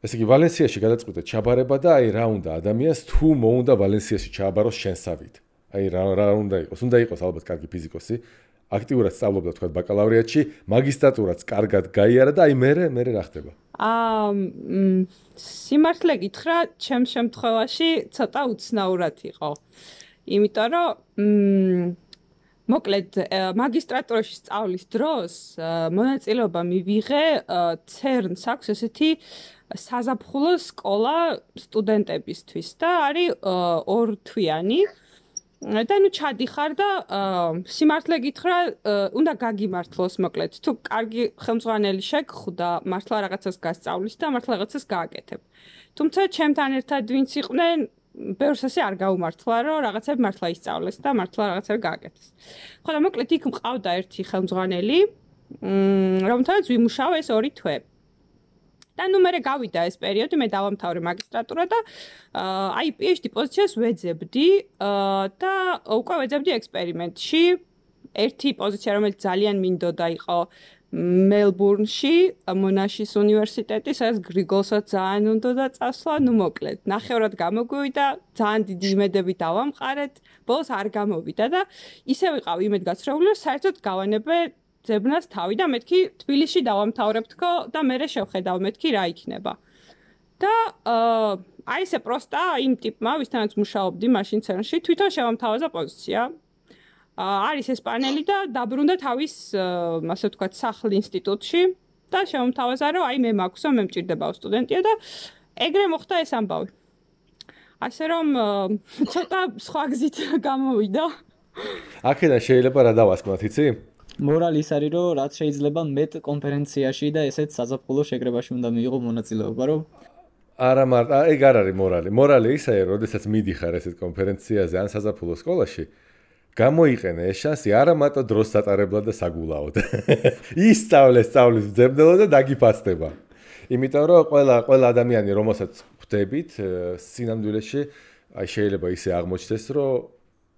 ესე იგი ვალენსიაში გადაწყვიტე ჩაბარება და აი რა უნდა ადამიანს თუ მოუნდა ვალენსიაში ჩააბაროს შენსავით. აი რა უნდა იყოს? უნდა იყოს ალბათ კარგი ფიზიკოსი, აქტიურად სწავლობდა თქვა ბაკალავრიატში, მაგისტრატურაც კარგად გაიარა და აი მე რა ხდება? სიმართლე გითხრა, ჩემ შემთხვევაში ცოტა უცნაურად იყო. იმიტომ რომ მოკლედ მაგისტრატურაში სწავლის დროს მონაწილეობა მივიღე CERN-ს აქვს ესეთი საზაფხულო სკოლა სტუდენტებისთვის და არის 2 თვიანი და ნუ ჩადიხარ და სიმართლე გითხრა, უნდა გაგიმართლოს მოკლედ. თუ კარგი ხელმძღვანელი შეგხვდა, მართლა რაღაცას გასწავლის და მართლა რაღაცას გააკეთებ. თუმცა ჩემთან ერთად ვინც იყვნენ, ბევრს ასე არ გაუმართლა, რომ რაღაცები მართლა ისწავლეს და მართლა რაღაცები გააკეთეს. ხო და მოკლედ იქ მყავდა ერთი ხელმძღვანელი, რომელთანაც ვიმუშაო ეს 2 თვე. და ნუ მე გავიდა ეს პერიოდი, მე დავამთავრე მაგისტრატურა და აი PhD პოზიციას ვეძებდი და უკვე ვეძებდი ექსპერიმენტში. ერთი პოზიცია, რომელიც ძალიან მინდოდა იყო მელბურნში, მონაშის უნივერსიტეტი, სადაც გრიგოლსაც ძალიან უნდოდა წასვლა, ნუ მოკლედ. ნახევრად გამოგვივიდა, ძალიან დიდი იმედები დავამყარეთ, ბოლოს არ გამოვიდა და ისე ვიყავ იმედგაცრუებული, რომ საერთოდ გავანებე ძებნას თავი და მეთქი თბილისში დავამთავრებთქო და მე შევხედავ მეთქი რა იქნება. და აი ესე პროსტა იმ ტიპმა, ვისთანაც მუშაობდი მაშინ CERN-ში, თვითონ შევამთავაზა პოზიცია. არის ესპანელი და დაბრუნდა თავის, ასე ვთქვათ, სახლ ინსტიტუტში და შევამთავაზა, რომ აი მე მაქვსო, მე მჭირდებაო სტუდენტია და ეგრე მოხდა ეს ამბავი. ასე რომ ცოტა სხვა გზით გამოვიდა. აქედან შეიძლება რა დავასკვნათ, იცი? მორალი ის არის, რომ რაც შეიძლება მეტ კონფერენციაში და ესეც საზაფხულო შეკრებაში უნდა მიიღო მონაწილეობა, რომ არა მარტო, ეგ არ არის მორალი. მორალი ისაა, რომ შესაძაც მიდიხარ ესეთ კონფერენციაზე ან საზაფხულო სკოლაში, გამოიყენე ეს შანსი არა მარტო დროს სატარებლად და საგულაოდ. ისწავლე სწავლის მძებნელად და დაგიფასდება. იმიტომ რომ ყველა ადამიანი, რომელსაც ხვდებით სინამდვილეში, აი შეიძლება ისე აღმოჩნდეს, რომ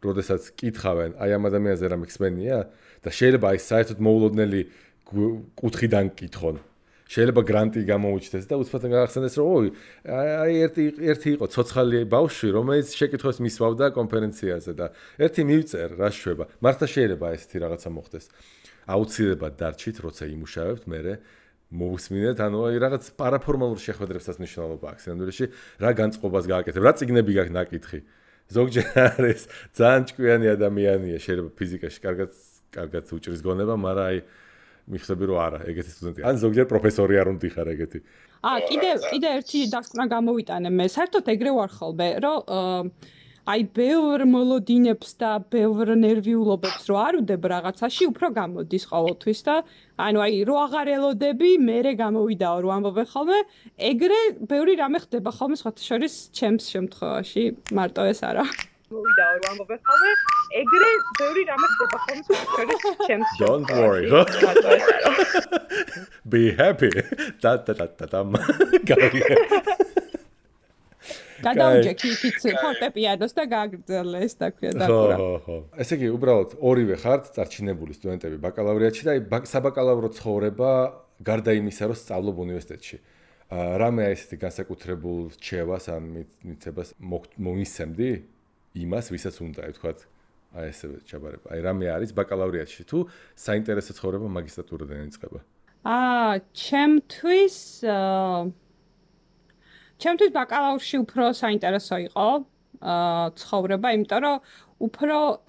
როდესაც კითხავენ, აი ამ ადამიანზე რა მიხსენია და შეიძლება აი საერთოდ მოულოდნელი კუთხიდან კითხონ. შეიძლება გრანტი გამოუჩნდეს და უცბად გახსენდეს, რომ ოი, აი ერთი იყო ცოცხალი ბავშვი, რომელიც შეკითხვას მისვავდა კონფერენციაზე და ერთი მივწერ, რა შვება. მართლა შეიძლება ესეთი რაღაცა მოხდეს. აუცილებლად დარჩით, როცა იმუშავებთ, მერე მოვუსმინეთ, ანუ აი რაღაც პარაფორმალურ შეხვედრებსაც მნიშვნელობა აქვს. სინამდვილეში რა განწყობას გააკეთებ, რა წიგნები გაქვს ნაკითხი. ზოგჯერ არის ძალიან ჭკვიანი ადამიანია, შეიძლება ფიზიკაში კარგად უჭრის გონება, მაგრამ აი მიხსები რომ არა, ეგეთი სტუდენტი. ან ზოგჯერ პროფესორი არ უნდა ხარ ეგეთი. კიდე ერთი დასკვნა გამოვიტანე მე. საერთოდ ეგრე ვარ ხოლმე, რომ აი ბევრ მოლოდინებს და ბევრ ნერვიულობებს რო არ უდებ რაღაცაში, უფრო გამოდის ყოველთვის და ანუ აი რო აღარ ელოდები, მერე გამოვიდაო რო ამბობე ხოლმე, ეგრე ბევრი რამე ხდება ხოლმე სხვათა შორის ჩემს შემთხვევაში, მარტო ეს არა. მოვიდაო რო ამბობე ხოლმე, ეგრე ბევრი რამე ხდება ხოლმე სხვათა შორის ჩემს შემთხვევაში. Don't worry. Be happy. Da. გადავჯექი იქით ფორტეპიანოს და გააგრძელე ეს და ქვია დაკვრა. ხო. ესე იგი, უბრალოდ ორივე ხართ წარჩინებული სტუდენტები ბაკალავრიატში და საბაკალავრო ცხოვრება გარდა იმისა, რომ სწავლობ უნივერსიტეტში. რამე აი ესეთი განსაკუთრებულ რჩევას ან მიცებას მომისცემდი იმას, ვისაც უნდა, ვთქვათ, აი ესე ჩაბარება. აი რამე არის ბაკალავრიატში თუ საინტერესო ცხოვრება მაგისტრატურიდან იწყება? ჩემთვის ბაკალავრში უფრო საინტერესო იყო ცხოვრება, იმიტომ რომ უფრო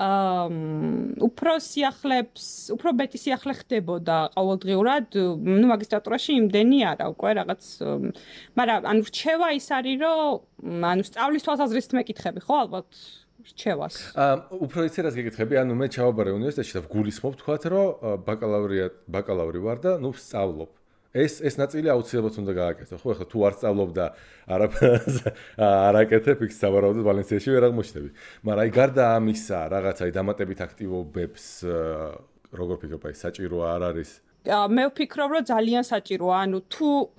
მეტი სიახლე ხდებოდა ყოველდღიურად, მაგისტრატურაში იმდენი არა, უკვე რაღაც, მაგრამ ანუ რჩევა ის არის, რომ ანუ სწავლის თვალსაზრისით მეკითხები, ხო, ალბათ რჩევას. უფრო იცი რას გეკითხები, ანუ მე ჩავაბარე უნივერსიტეტში და ვგულისხმობ, თქვათ, რომ ბაკალავრი ვარ და ნუ ვსწავლობ. ეს ნაწილი აუცილებლად უნდა გააკეთო, ხო, ახლა თუ არ სწავლობ და არ აკეთებ, იქ სავარაუდოდ ვალენსიაში ვერ აღმოჩნდები. მაგრამ აი გარდა ამისა, რაღაცა დამატებით აქტივობებს როგორ ფიქრობ, აი საჭირო არ არის? მე ვფიქრობ, რომ ძალიან საჭიროა, ანუ თუ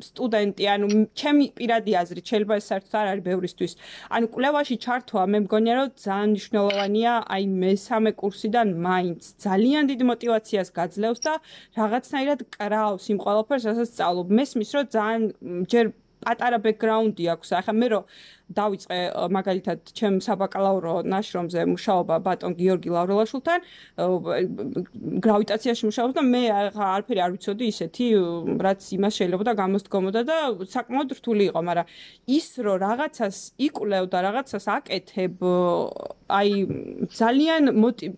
სტუდენტი, ანუ ჩემი პირადი აზრით, შეიძლება ეს საერთოდ არ არის ბევრისთვის. ანუ კვლევაში ჩართვა, მე მგონია, რომ ძალიან მნიშვნელოვანია, აი მესამე კურსიდან მაინც ძალიან დიდ мотиваციას გაძლევს და რაღაცნაირად კრავს იმ ყველაფერს, რასაც სწავლობ. მესმის, რომ ძალიან ჯერ პატარა ბექგრაუნდი აქვს. ახლა მე რომ დავიწყე მაგალითად ჩემ საბაკალავრო ნაშრომზე მუშაობა ბატონ გიორგი ლავრელაშვილთან, გრავიტაციაში მუშაობს და მე არაფერი არ ვიცოდი ისეთი, რაც იმას შეიძლება და გამოსდგომოდა და საკმაოდ რთული იყო, მაგრამ ის რომ რაღაცას იკვლევ და რაღაცას აკეთებ, აი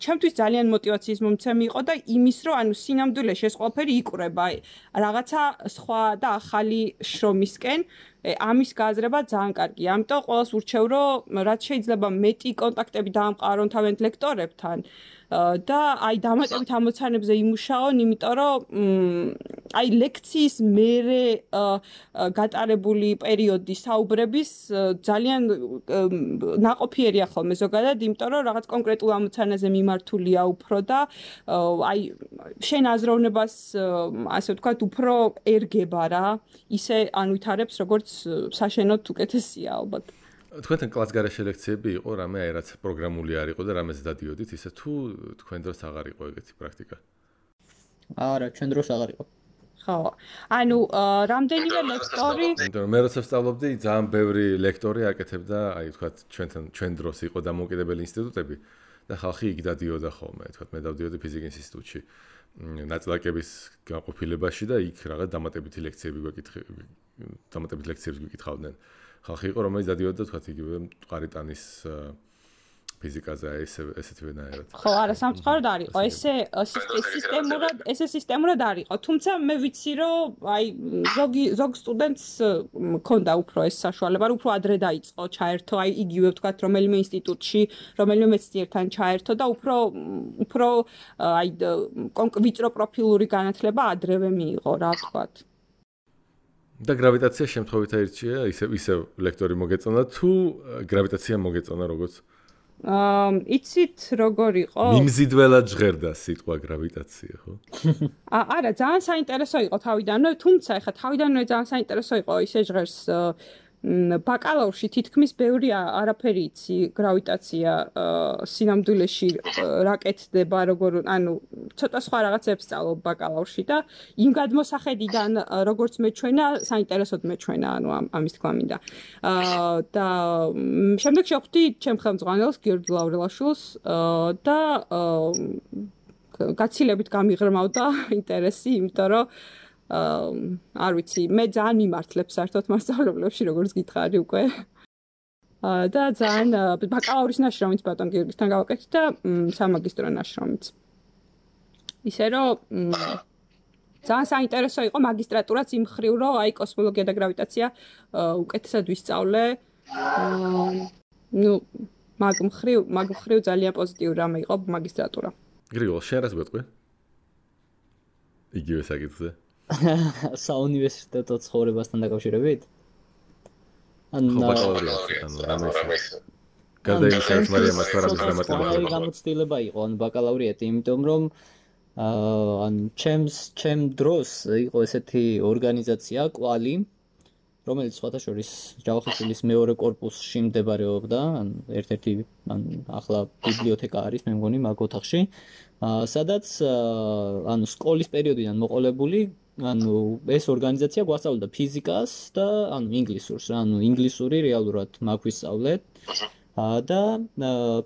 ჩემთვის ძალიან мотиваციის მომცემი იყო და იმის რომ ანუ სინამდვილეში ეს ყველაფერი იკვრება, აი რაღაცა სხვა და ახალი შრომისკენ ამის გააზრება ძალიან კარგია. ამიტომ ყველას ურჩევ, რომ რაც შეიძლება მეტი კონტაქტები დაამყარონ თავიანთ ლექტორებთან და აი დამატებით ამოცანებზე იმუშაონ, იმიტომ რომ აი ლექციის მერე გატარებული პერიოდი საუბრების ძალიან ნაყოფიერია ხოლმე ზოგადად, იმიტომ რომ რაღაც კონკრეტულ ამოცანაზე მიმართულია უფრო და აი შენ აზროვნებას ასე ვთქვათ, უფრო ერგება რა, ისე ანვითარებს, როგორც საშენოდ უკეთესია ალბათ. თქვენთან კლასგარეშე ლექციები იყო, რამე აი რაც პროგრამული არ იყო და რამეც დადიოდით, ისე თუ თქვენ დროს აღარ იყო ეგეთი პრაქტიკა? არა, ჩვენ დროს აღარ იყო. ხო. ანუ რამდენიმე ლექტორი, იმიტომ მე როცა ვსწავლობდი, ძალიან ბევრი ლექტორი აკეთებდა, აი თქვათ ჩვენ დროს იყო დამოუკიდებელი ინსტიტუტები და ხალხი იქ დადიოდა ხოლმე, თქვათ მე დავდიოდი ფიზიკის ინსტიტუტში ნაწილაკების განყოფილებაში და იქ რაღაც დამატებითი ლექციები გვეკითხავდნენ. ხალხი იყო, რომელიც დადიოდა, თქვათ, იგივე მყარი ტანის ფიზიკაზე ესეთვენაირად. ხო, არა, სამწუხაროდ არ იყო. ესე სისტემურად არ იყო. თუმცა მე ვიცი, რომ აი ზოგ სტუდენტს მქონდა უფრო ეს საშუალება, რომ უფრო ადრე დაიწყო ჩაერთო, აი იგივე ვთქვათ, რომელიმე ინსტიტუტში, რომელიმე მეცნიერთან ჩაერთო და უფრო აი ვიწრო პროფილური განათლება ადრევე მიიღო, რა ვთქვათ. და გრავიტაცია შემთხვევით აირჩია, ისე ლექტორი მოგეწონა თუ გრავიტაცია მოგეწონა როგორც? იცით როგორ იყო? მიმზიდველად ჟღერდა სიტყვა გრავიტაცია, ხო? არა, ძალიან საინტერესო იყო თავიდანვე, თუმცა ეხლა თავიდანვე ძალიან საინტერესო იყო ისე ჟღერს ბაკალავრში თითქმის ბევრი არაფერი იცი გრავიტაცია სინამდვილეში რა კეთდება როგორ ანუ ცოტა სხვა რაღაცებს სწავლობ ბაკალავრში და იმ გადმოსახედიდან როგორც მეჩვენა საინტერესოდ მეჩვენა ანუ ამის თქვა მინდა და შემდეგ შევხვდი ჩემ ხელმძღვანელს გიორგი ლავრელაშვილს და გაცილებით გამიღრმავდა ინტერესი იმიტომ რომ არ ვიცი, მე ძალიან მიმართლებ საერთოდ მასწავლებლებში, როგორც გითხარი უკვე. და ძალიან ბაკალავრის ნაშრომიც ბატონ გიორგისთან გავაკეთე და სამაგისტრო ნაშრომიც. ისე რომ ძალიან საინტერესო იყო მაგისტრატურაც იმ მხრივ, რომ აი კოსმოლოგია და გრავიტაცია უკეთესად ვისწავლე. მაგ მხრივ ძალიან პოზიტიური რამე იყო მაგისტრატურა. გრიგოლ, შენ რას გვეტყვი? იგივე საკითხზე. საუნივერსიტეტო ცხოვრებასთან დაკავშირებით? გადაიხადეთ მარიამ ასპარაგის დამატება. გამოცდილება იყო ან ბაკალავრიატი, იმიტომ რომ ჩემ დროს იყო ესეთი ორგანიზაცია კვალი, რომელიც სხვათა შორის ჯავახიშვილის მეორე კორპუსში მდებარეობდა, ერთ-ერთი ახლა ბიბლიოთეკა არის, მე მგონი მაგ ოთახში, სადაც სკოლის პერიოდიდან მოყოლებული ეს ორგანიზაცია გვასწავლდა ფიზიკას და ინგლისურს, ინგლისური რეალურად მაგ ვისწავლეთ და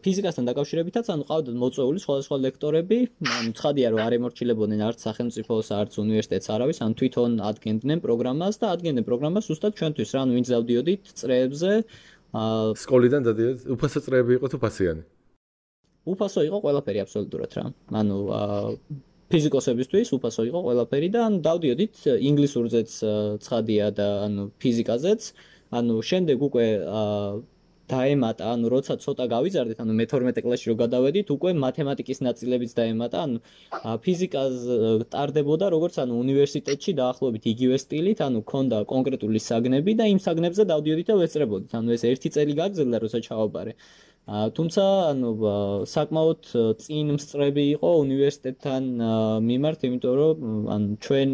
ფიზიკასთან დაკავშირებითაც ყავდათ მოწვეული სხვადასხვა ლექტორები, ცხადია რომ არ ემორჩილებოდნენ არც სახელმწიფოს, არც უნივერსიტეტს არავის, თვითონ ადგენდნენ პროგრამას და ადგენდნენ პროგრამას ზუსტად ჩვენთვის, ვინც დავდიოდით წრეებზე. სკოლიდან დადიოდით, უფასო წრეები იყო თუ ფასიანი? უფასო იყო ყველაფერი აბსოლუტურად რა. ფიზიკოსებისთვის უფასო იყო ყველაფერი და დავდიოდით ინგლისურზეც ცხადია და ფიზიკაზეც. შემდეგ უკვე დაემატა, როცა ცოტა გავიზარდეთ, მე-12 კლასში რო გადავედით, უკვე მათემატიკის ნაწილებიც დაემატა, ფიზიკას ტარდებოდა როგორც უნივერსიტეტში დაახლოებით იგივე სტილით, ქონდა კონკრეტული საგნები და იმ საგნებზე დავდიოდით და ვესწრებოდით. ეს ერთი წელი გაგრძელდა, როცა ჩავაბარე. თუმცა საკმაოდ წინ მსწრები იყო უნივერსიტეტთან მიმართ, იმიტომ რომ ჩვენ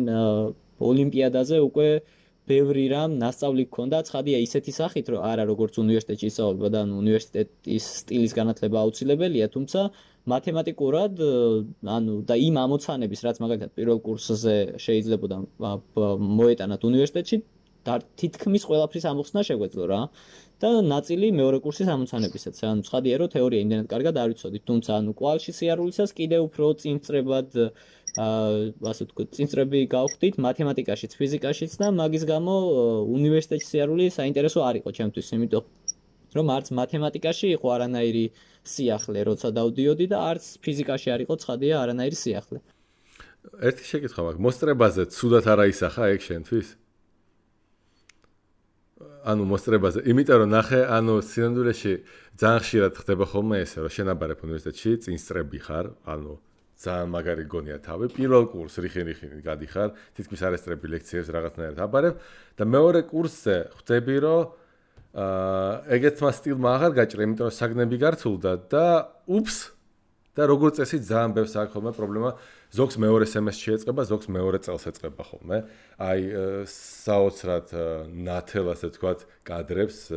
ოლიმპიადაზე უკვე ბევრი რამ ნასწავლი გქონდა, ცხადია ისეთი სახით, რომ არა როგორც უნივერსიტეტში ისწავლება და უნივერსიტეტის სტილის განათლება აუცილებელია, თუმცა მათემატიკურად და იმ ამოცანების, რაც მაგალითად პირველ კურსზე შეიძლებოდა მოეტანათ უნივერსიტეტში, თითქმის ყველაფრის ამოხსნა შეგვეძლო რა. და ნაწილი მეორე კურსის ამოცანებისაც. ცხადია რომ თეორია იმდენად კარგად არ ვიცოდით, თუმცა კვალში სიარულისას კიდევ უფრო წინწრებად ასე ვთქვათ, წინწრები გავხდით მათემატიკაშიც, ფიზიკაშიც და მაგის გამო უნივერსიტეტში სიარული საინტერესო არ იყო ჩემთვის, იმიტომ რომ არც მათემატიკაში იყო არანაირი სიახლე, როცა დავდიოდი და არც ფიზიკაში არ იყო ცხადია არანაირი სიახლე. ერთი შეკითხვა მაქვს, მოსწრებაზე ცუდად არ აისახა ეგ შენთვის? მოსწრებაზე, იმიტომ რომ ნახე, სინამდვილეში ძალიან ხშირად ხდება ხოლმე ესე, რომ შენ აბარებ უნივერსიტეტში, წინსწრები ხარ, ძალიან მაგარი გონია თავი, პირველ კურსს რიხინ-რიხინით გადიხარ, თითქმის არ ესწრები ლექციებს რაღაცნაირად აბარებ და მეორე კურსზე ხვდები, რომ ეგეთმა სტილმა აღარ გაჭრა, იმიტომ რომ საგნები გართულდა და უფს და როგორც წესი ძალიან ბევრს აქვს ხოლმე პრობლემა, ზოგს მეორე სემესტრში ეწყება, ზოგს მეორე წელს ეწყება ხოლმე. აი საოცრად ნათელ ასე თქვათ კადრებს,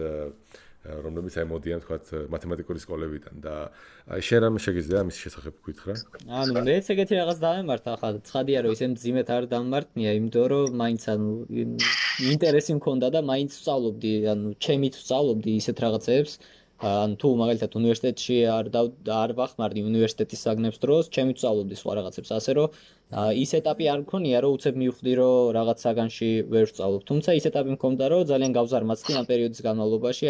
რომლებიც მოდიან თქვათ მათემატიკური სკოლებიდან და აი შენ რამე შეგიძლია ამის შესახებ გითხრა? მეც ეგეთი რაღაც დავემართა, ახლა ცხადია რომ ისე მძიმედ არ დამმართნია, იმიტომ რომ მაინც ინტერესი მქონდა და მაინც ვსწავლობდი, ჩემით ვსწავლობდი ისეთ რაღაცებს. თუ მაგალითად უნივერსიტეტში არ ვახმარდი უნივერსიტეტის საგნებს დროს, ჩემი ვსწავლობდი სხვა რაღაცებს, ასე რომ ის ეტაპი არ მქონია, რომ უცებ მივხვდი, რომ რაღაც საგანში ვერ ვსწავლობ. თუმცა ის ეტაპი მქონდა, რომ ძალიან გავზარმაცდი ამ პერიოდის განმავლობაში,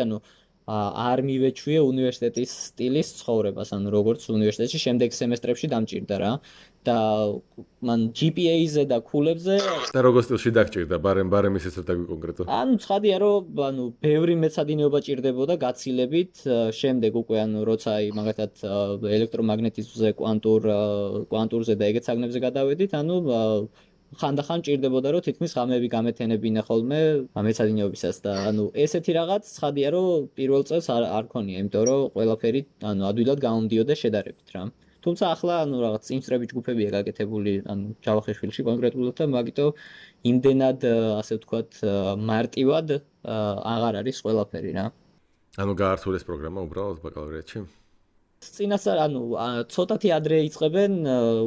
არ მივეჩვიე უნივერსიტეტის სტილის ცხოვრებას, ანუ როგორც უნივერსიტეტში შემდეგ სემესტრებში დამჭირდა რა. და მან GPA-ზე და ქულებზე და როგორ სტილში დაგჭირდა, ბარემ ისეც დაგვი კონკრეტო. ანუ ცხადია რომ ბევრი მეცადინეობა ჭირდებოდა გაცილებით, შემდეგ უკვე როცა მაგათად ელექტრომაგნეტიზმზე, კვანტურზე და ეგეთ საგნებზე გადავედით, ხანდახან ჭირდებოდა რომ თითქმის ღამეები გამეთენებინა ხოლმე მეცადინეობისას და ესეთი რაღაც ცხადია რომ პირველ წელს არ ქონია, იმიტომ რომ ყველაფერი ადვილად გამომდიოდა შედარებით რა. თუმცა ახლა რაღაც წინსწრები ჯგუფებია გაკეთებული ჯავახიშვილში კონკრეტულად და მაგიტომ იმდენად ასე ვთქვათ მარტივად აღარ არის ყველაფერი რა. გაართულეს პროგრამა უბრალოდ ბაკალავრიატში? წინასწარ ცოტათი ადრე იწყებენ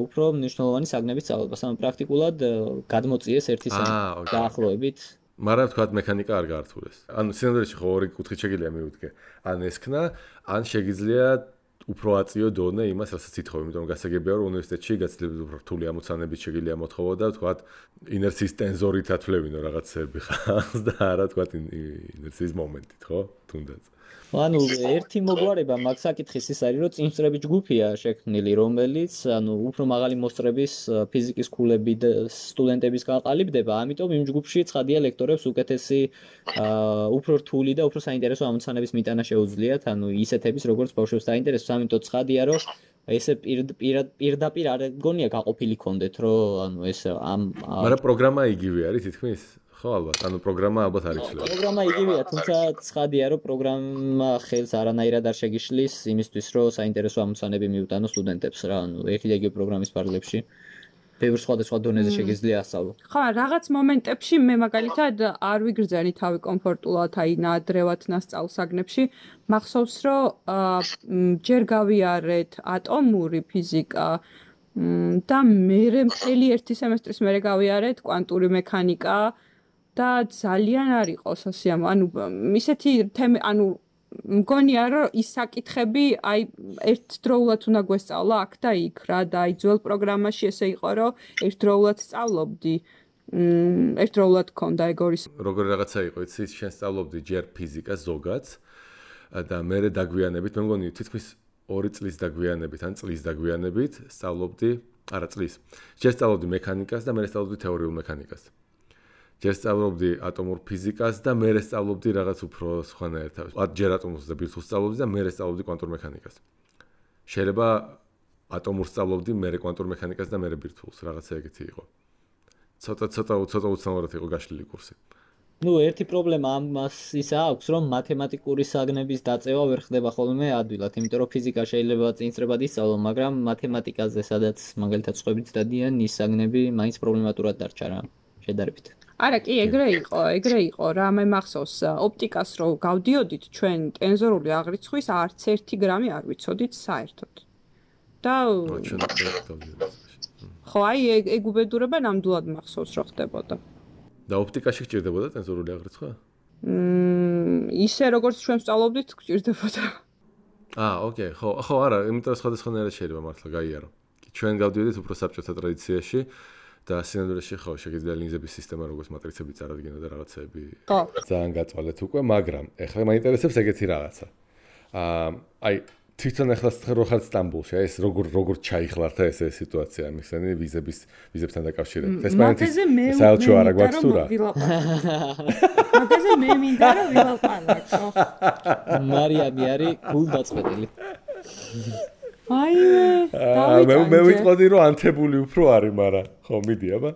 უფრო მნიშვნელოვანი საგნების სწავლებას, პრაქტიკულად გადმოწიეს ერთი დაახლოებით. მაგრამ თქვათ მექანიკა არ გაართულეს. სინამდვილეში ხო ორი კუთხით შეგიძლია მივუდგე. ან ესქნა, ან შეგიძლია უფრო აწიო დონე იმას, რასაც ითხოვე, იმიტომ რომ გასაგებია რომ უნივერსიტეტში გაცილებით უფრო რთული ამოცანებით შეგიძლია მოთხოვო და თქვათ ინერციის ტენზორით ათვლებინო რაღაცები ხალხს და არა თქვათ ინერციის მომენტით, ხო? თუნდაც. ერთი მოგვარება მაგ საკითხის ის არის, რომ წინსწრები ჯგუფია შექმნილი, რომელიც უფრო მაღალი მოსწრების ფიზიკის ქულები და სტუდენტების გაყალიბდება, ამიტომ იმ ჯგუფში ცხადია ლექტორებს უკეთესი უფრო რთული და უფრო საინტერესო ამოცანების მიტანა შეუძლიათ, ისეთების როგორც ბავშვებს დაინტერესებს, ამიტომ ცხადია რომ ესე პირდაპირ არ გონია გაყოფილი კონდეთ, რომ ეს მაგრამ პროგრამა იგივე არის თითქმის? ხო ალბათ, პროგრამა ალბათ არ იცვლება. პროგრამა იგივეა, თუმცა ცხადია რომ პროგრამა ხელს არანაირად არ შეგიშლის იმისთვის, რომ საინტერესო ამოცანები მიუტანო სტუდენტებს რა, ერთი და იგივე პროგრამის ფარგლებში. ბევრ სხვადასხვა დონეზე შეგიძლია ასწავლო. ხო, რაღაც მომენტებში მე მაგალითად არ ვიგრძენი თავი კომფორტულად, ნაადრევად ნასწავლ საგნებში. მახსოვს, რომ ჯერ გავიარეთ ატომური ფიზიკა და მე მთელი ერთი სემესტრის მერე გავიარეთ კვანტური მექანიკა და ძალიან არ იყო სასიამო. ისეთი თემი, მგონია რომ ის საკითხები ერთდროულად უნდა გვესწავლა აქ და იქ რა და ძველ პროგრამაში ესე იყო რომ ერთდროულად სწავლობდი. ერთდროულად ქონდა ეგორის. როგორი რაღაცა იყო, იცი, შენ სწავლობდი ჯერ ფიზიკას ზოგადს და მერე დაგვიანებით, მე მგონი თითქმის 2 წლის დაგვიანებით, ან წლის დაგვიანებით სწავლობდი, არა წლის. ჯერ სწავლობდი მექანიკას და მერე სწავლობდი თეორიულ მექანიკას. ჯერ სწავლობდი ატომურ ფიზიკას და მერე სწავლობდი რაღაც უფრო სხვანაირად. ჯერ ატომურს და ბირთვულს სწავლობდი და მერე სწავლობდი კვანტურ მექანიკას. შეიძლება ატომურს სწავლობდი, მერე კვანტურ მექანიკას და მერე ბირთვულს, რაღაცა ეგეთი იყო. ცოტა უცნაურად იყო გაშლილი კურსი. ერთი პრობლემა ამას ისა აქვს, რომ მათემატიკური საგნების დაწევა ვერ ხდება ხოლმე ადვილად, იმიტომ რომ ფიზიკა შეიძლება წინსწრებად ისწავლო, მაგრამ მათემატიკაზე, სადაც მაგალითად სხვებიც დადიან, ის საგნები მაინც პრობლემატურად დარჩა რა, შედარებით. არა, კი, ეგრე იყო რა, მე მახსოვს, ოპტიკას რო გავდიოდით ჩვენ ტენზორული აღრიცხვის არც 1 გრამი არ ვიცოდით საერთოდ. და ხო, ეგ უბედურება ნამდვილად მახსოვს რო ხდებოდა. და ოპტიკაში გჭირდებოდა ტენზორული აღრიცხვა? ისე როგორც ჩვენ ვსწავლობდით, გჭირდებოდა. ოკეი, ხო, არა, იმიტომ სხვადასხვანაირად შეიძლება მართლა გაიარო. ჩვენ გავდიოდით უფრო საბჭოთა ტრადიციაში და სინამდვილეში ხო, შეგიძლია ლინზების სისტემა როგორც მატრიცები წარადგინო და რაღაცეები. ხო. ძალიან გაწვალეთ უკვე, მაგრამ ეხლა მაინტერესებს ეგეთი რაღაცა. თვითონ ეხლა რო ხარ სტამბოლში, ეს როგორ ჩაიხლართ ეს სიტუაცია, მიხსენი ვიზებთან დაკავშირებით. ესპანეთის საელჩო არა გვაქვს თუ რა? მაგაზე მე მინდა რომ ვილაპარაკო. მარიამი არის გულდაწყვეტილი. მე ვიტყოდი რომ ანთებული უფრო არის, მაგრამ ხო მიდი აბა.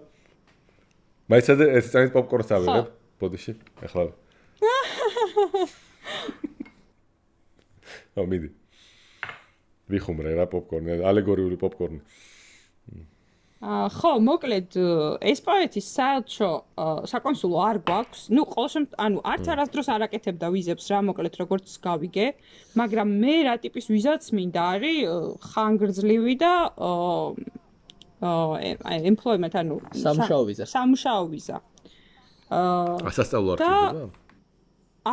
მაიცადე ეს წამით პოპკორნს ავიღებ ბოდიში, ეხლა. მიდი. ვიხუმრე რა პოპკორნი, ალეგორიული პოპკორნი. ხო, მოკლედ ესპანეთის საელჩო საკონსულო არ გვაქვს. ყოველ შემთხვევაში, არც არასდროს არ აკეთებდა ვიზებს რა, მოკლედ როგორც გავიგე, მაგრამ მე რა ტიპის ვიზაც მინდა არის ხანგრძლივი და employment, სამუშაო ვიზა. სასწავლო არ ხდება?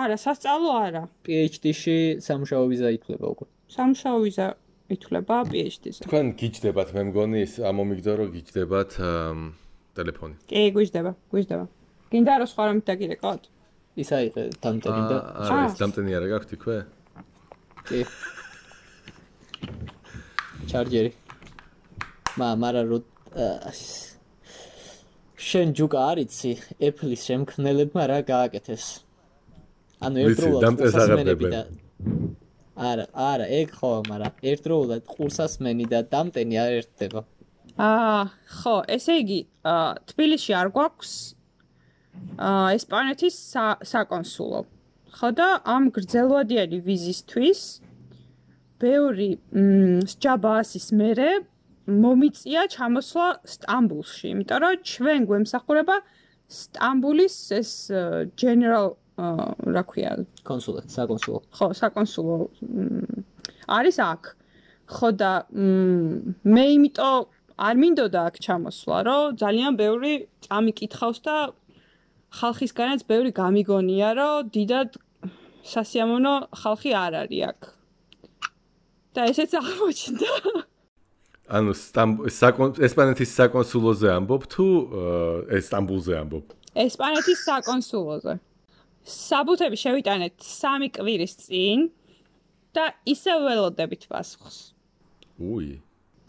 არა, სასწავლო არა. PhD-ში სამუშაო ვიზა ითვლება უკვე. სამუშაო ვიზა ითვლება PhD-ზე. თქვენ გიჯდებათ, მე მგონი ის ამომიგდო რომ გიჯდებათ ტელეფონი. კი, გვიჯდება. გინდა რომ სხვა რამით დაგირეკავთ? ის აიღე დამტენი და არა, ეს დამტენი არა გაქვთ იქვე? კი. ჩარჯერი. მაგრამ შენ ჯუკა არიცი, Apple-ის შემქმნელებმა რა გააკეთეს. ანუ ერთდროულად ყურსასმენები და არა, ეგ ხო, მაგრამ ერთდროულად ყურსასმენი და დამტენი არ ერთდება. ხო, ესე იგი, თბილისში არ გვაქვს ესპანეთის საკონსულო. ხო და ამ გრძელვადიანი ვიზისთვის ბევრი სჯაბაასის მერე მომიწია ჩამოსვლა სტამბულში, იმიტომ რომ ჩვენ გვემსახურება სტამბულის ეს general რა ქვია, საკონსულო. ხო, საკონსულო არის აქ. ხო და მე იმიტომ არ მინდოდა აქ ჩამოსვლა, რომ ძალიან ბევრი წამიკითხავს და ხალხისგანაც ბევრი გამიგონია, რომ დიდად სასიამოვნო ხალხი არ არის აქ. და ესეც აღმოჩნდა. ანუ ესპანეთის საკონსულოზე ამბობ თუ სტამბულზე ამბობ? ესპანეთის საკონსულოზე. საბუთები შევიტანეთ 3 კვირის წინ და ისევ ველოდებით პასუხს. უი.